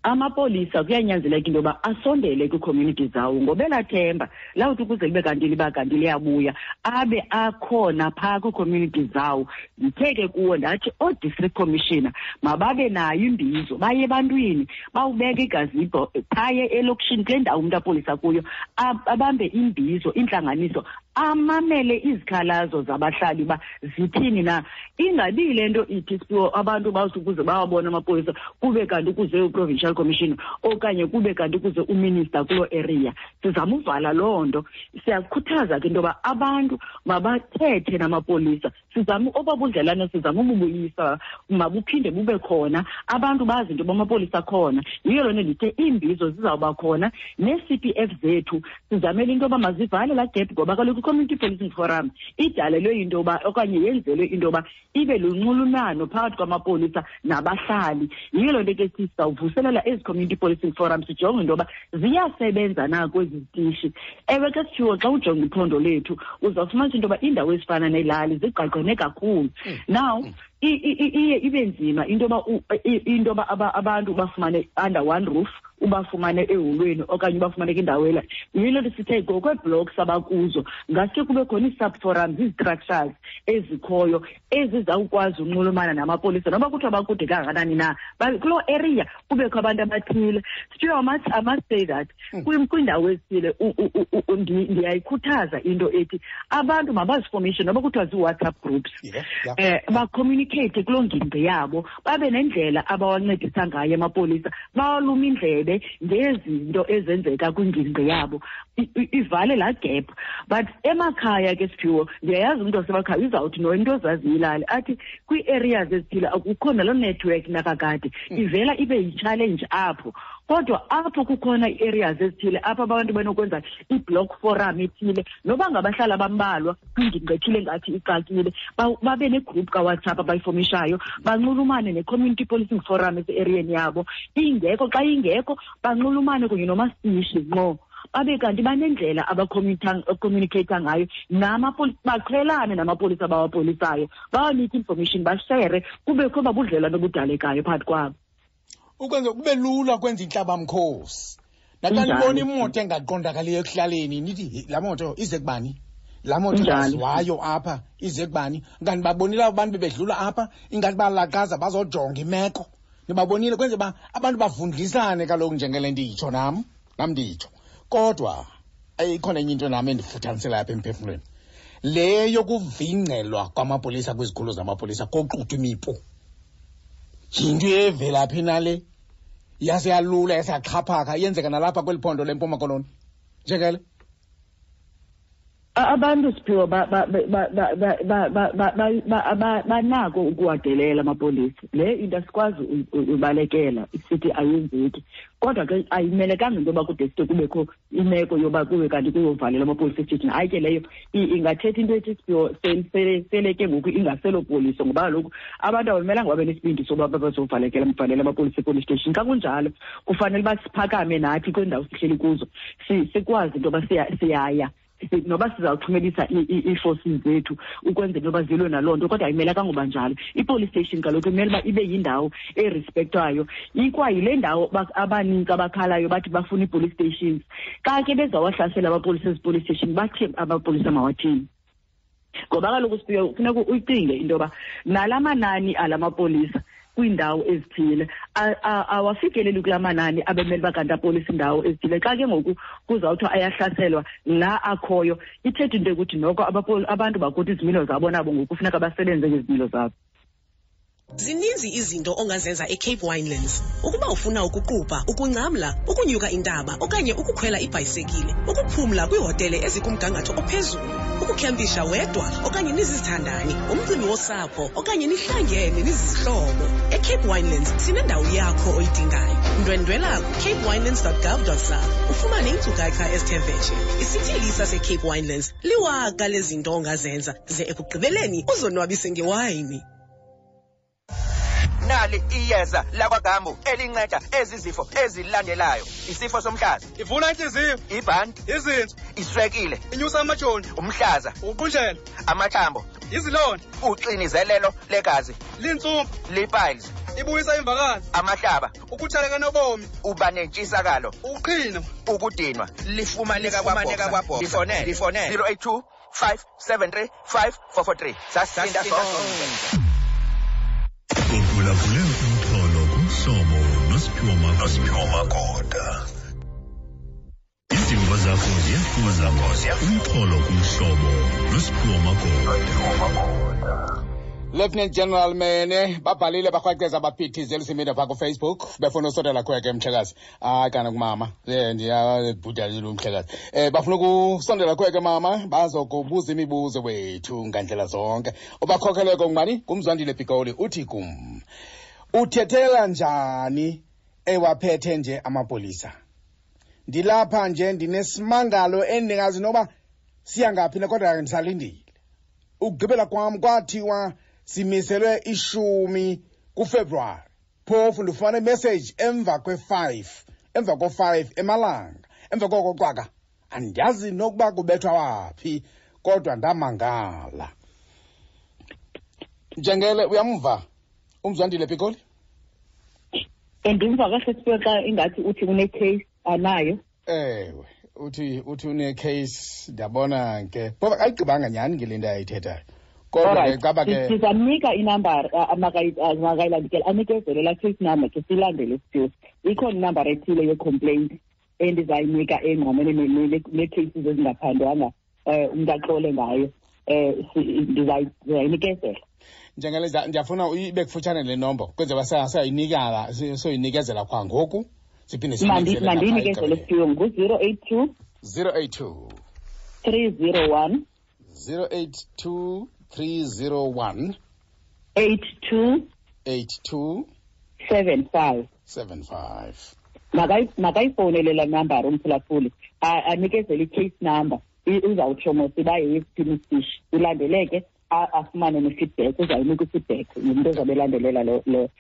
Amapolisa kuyanyanzeleka into yoba asondele kwii-community zawo ngoba elaa themba lawuthi ukuze libe kanti liba kanti liyabuya abe akhona phaa kwii-community zawo. Ndithe ke kuwo ndathi oo-district commissioner mababe nayo imbizo, baye ebantwini, bawubeke igazibho phaye elokishini kule ndawo umntu apolisa kuyo, abambe imbizo, intlanganiso, amamele izikhalazo zabahlali uba zithini na. Ingabi yile nto ithi Siphiwo abantu bawuthi ukuze bawabone amapolisa kube kanti kuze u-provincial commissioner okanye kube kanti kuze uminister kuloo area. Sizama uvala loo nto. Siyakhuthaza ke into yoba abantu mabathethe namapolisa, sizame oba budlelane, sizame ububuyisa, mabuphinde bube khona, abantu bazi into yoba amapolisa akhona. Yiyo loo nto ndithe iimbizo zizawuba khona nee-C P F zethu sizamele into yoba mazivale laa gap, ngoba kaloku i-Community Policing Forum idalelwe into yoba okanye yenzelwe into yoba ibe lunxulumano phakathi kwamapolisa nabahlali. Yiyo loo nto ke sizawuvuselela ezi Community Policing Forum, sijonge into yoba ziyasebenza na kwezi zitishi. Ewe ke Siphiwo, xa ujonga iphondo lethu uzawufumanisa into yoba iindawo ezifana neelali zigqagqene kakhulu. Now iye ibe nzima into yoba into yoba abantu bafumane under one roof, ubafumane eholweni okanye ubafumane kwindawo ela. Yiyo le nto sithe ngokweeblocks abakuzo ngaske kube khona ii-subforums, ii-structures ezikhoyo ezizawukwazi unxulumana namapolisa noba kuthiwa bakude kangakanani na, kuloo area kubekho abantu abathile. Siphiwe, I must say that kwiindawo ezithile ndiyayikhuthaza into ethi abantu mabazifomishe noba kuthiwa zii-WhatsApp groups, bacommunicate kuloo ngingqi yabo, babe nendlela abawancedisa ngayo amapolisa, bawalume indlebe ngezinto ezenzeka kwingingqi yabo, ivale laa gap. But emakhaya ke Siphiwo, ndiyayazi umntu wasemakhaya uzawuthi no into ozaziyo ilali athi kwii-areas ezithile akukho naloo network nakakade, ivela ibe yi-challenge apho. Kodwa apho kukhona ii-areas ezithile apho abantu banokwenza i-block forum ethile, noba ngabahlali abambalwa kwingingqi ethile ngathi ixakile, babe negroup kaWhatsApp abayifomishayo, banxulumane ne-community policing forum ese-eriyeni yabo. Ingekho, xa ingekho banxulumane kunye nomasishi ngqo, babe kanti banendlela abacommunicate ngayo namapolisa, baqhelane namapolisa abawapolisayo, bawanike information, bashere, kubekho babudlelwane obudalekayo phakathi kwabo. Ukwenza kube lula kwenza intlabamkhosi. Naxa nibona imoto engaqondakaliyo ekuhlaleni, nithi laa moto ize kubani? Laa moto ingaziwayo apha ize kubani? Kanti babonile abantu bebedlula apha, ingathi balaqaza bazojonga imeko. Nibabonile kwenze uba abantu bavundlisane kaloku njengele nditsho nam, nam nditsho. Kodwa ikhona enye into nam endifuthanisela apha emphefumlweni. Le yokuvingcelwa kwamapolisa kwizikhululo zamapolisa koxuthwa imipu. Yinto evelaphi na le? Yase yalula, yase yaxhaphaka, yenzeka nalapha kweli phondo leMpuma Koloni. Njengele? Abantu Siphiwo banako ukuwadelela amapolisa. Le into asikwazi ubalekela sithi ayenzeki, kodwa ke ayimelekanga into yoba kude side kubekho imeko yoba kube kanti kuyovalela amapolisa esithini. Hayi ke leyo ingathetha into ethi Siphiwo sele ke ngoku ingaselopoliso, ngoba kaloku abantu abamelanga babe nesibindi soba bazovalekela valela amapolisa epolice station. Xa kunjalo kufanele uba siphakame nathi kwiindawo sihleli kuzo, sikwazi into yoba siyaya, noba sizawuthumelisa ii-forces zethu ukwenzela into yoba zilwe naloo nto, kodwa ayimelekanga uba njalo. I-police station kaloku imele uba ibe yindawo erespektwayo, ikwayile ndawo abanintsi abakhalayo bathi bafuna ii-police stations. Xa ke bezawahlasela abapolisa ezi-police station, bathi amapolisa mawathini? Ngoba kaloku Siphiwe, kufuneka uyicinge into yoba nala manani ala mapolisa kwiindawo ezithile awafikeleli kulaa manani abemele uba kanti apolisa iindawo ezithile. Xa ke ngoku kuzawuthiwa ayahlaselwa la akhoyo, ithetha into yokuthi noko abantu bakuthi izimilo zabo nabo ngoku kufuneka basebenze ngezimilo zabo. Zininzi izinto ongazenza eCape Winelands. Ukuba ufuna ukuqubha, ukungcamla, ukunyuka intaba okanye ukukhwela ibhayisekile, ukuphumla kwiihotele ezikumgangatho ophezulu, ukukhempisha wedwa okanye nizizithandani, umcimbi wosapho okanye nihlangene nizizihlobo. eCape Winelands sinendawo yakho oyidingayo. Ndwendwela ku-capewinelands.gov.za ufumane iinkcukacha ezithe vetshe. Isithili saseCape Winelands liwaka lezinto ongazenza ze ekugqibeleni uzonwabise ngewayini. Nali iyeza lakwaGambu elinceda ezi zifo ezilandelayo: isifo somhlaza, ivula intliziyo, ibhanti, izinso, iswekile, inyusa amajoni, umhlaza, ukuqunjelwa, amathambo, izilonda, uxinizelelo legazi, lintsumpa, lipiles. Ibuyisa imvakalo. Amahlaba. Ukutshaleka nobomi. Uba nentshisakalo. Ukuqhina. Ukudinwa. Lifumaneka kwaBoxer. Lifonele. Lifonele. 082 573 5443. Sasinda sonke. Uphulaphule umxholo kumhlobo noSiphiwo Magoda. Izimvo zakho ziyafuza umxholo kumhlobo noSiphiwo Magoda. Lieutenant General Mene babhalile barhwaqeza baphithizela usimida phaa kufacebook befuna usondela kweke mhlekazi. Hayi kana kumama um ndiyabhudalile umhlekazi. Um bafuna ukusondela kweke mama bazokubuza imibuzo wethu ngandlela zonke. Ubakhokheleko ngubani? Ngumzwandile Pikoli uthi kum uthethela njani ewaphethe nje amapolisa? Ndilapha nje ndinesimangalo endingazi noba siya ngaphi na, kodwa ndisalindile. Ukugqibela kwam kwathiwa simiselwe 10 kuFebruwari. Phofu ndifumana imessage emva kwe-5, emva ko-5 emalanga. Emva koko cwaka andiyazi nokuba kubethwa waphi, kodwa ndamangala. Njengele uyamva umzwandile Pikoli? Ndimva kahle Siphiwe xa ingathi uthi une-case anayo. Ewe, uthi une-case, ndiyabona ke. Phofu akayigqibanga nyhani ke le nto ayithethayo. Kodwa ke caba ke sizamnika inambara makayilandele, anikezele laa case number ke silandele Siphiwe. Ikhona inambara ethile ye-complaint endizayinika engqamene nee-cases ezingaphandwanga, umntu axole ngayo. Ndizayinikezela. Njengele ndiyafuna ibe kufutshane le nombo kwenzela uba soyinikezela kwa ngoku siphinde siyinikezele napha Mandiyinikezele egqibeleni. Siphiwe, ngu-zero eight two, 082, 301, 082 301, 82, 82, 75. 75. Makayifowunele laa nambara umphulaphuli, anikezele i-case number. Uzawutsho mos uba yeyesiphi isishi, ilandeleke, afumane ne-feedback, uzayinika i-feedback ngumntu ozabe elandelela lo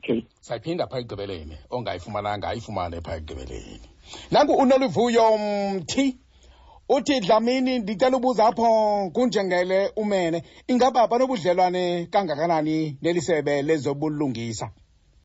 case. Sayiphinda phaa ekugqibeleni, ongayifumananga ayifumane phaa ekugqibeleni. Nanku uNoluvuyo Mthi uthi, Dlamini, ndicela ubuza apho kunjengele umene, ingaba banobudlelwane kangakanani neli sebe lezobulungisa?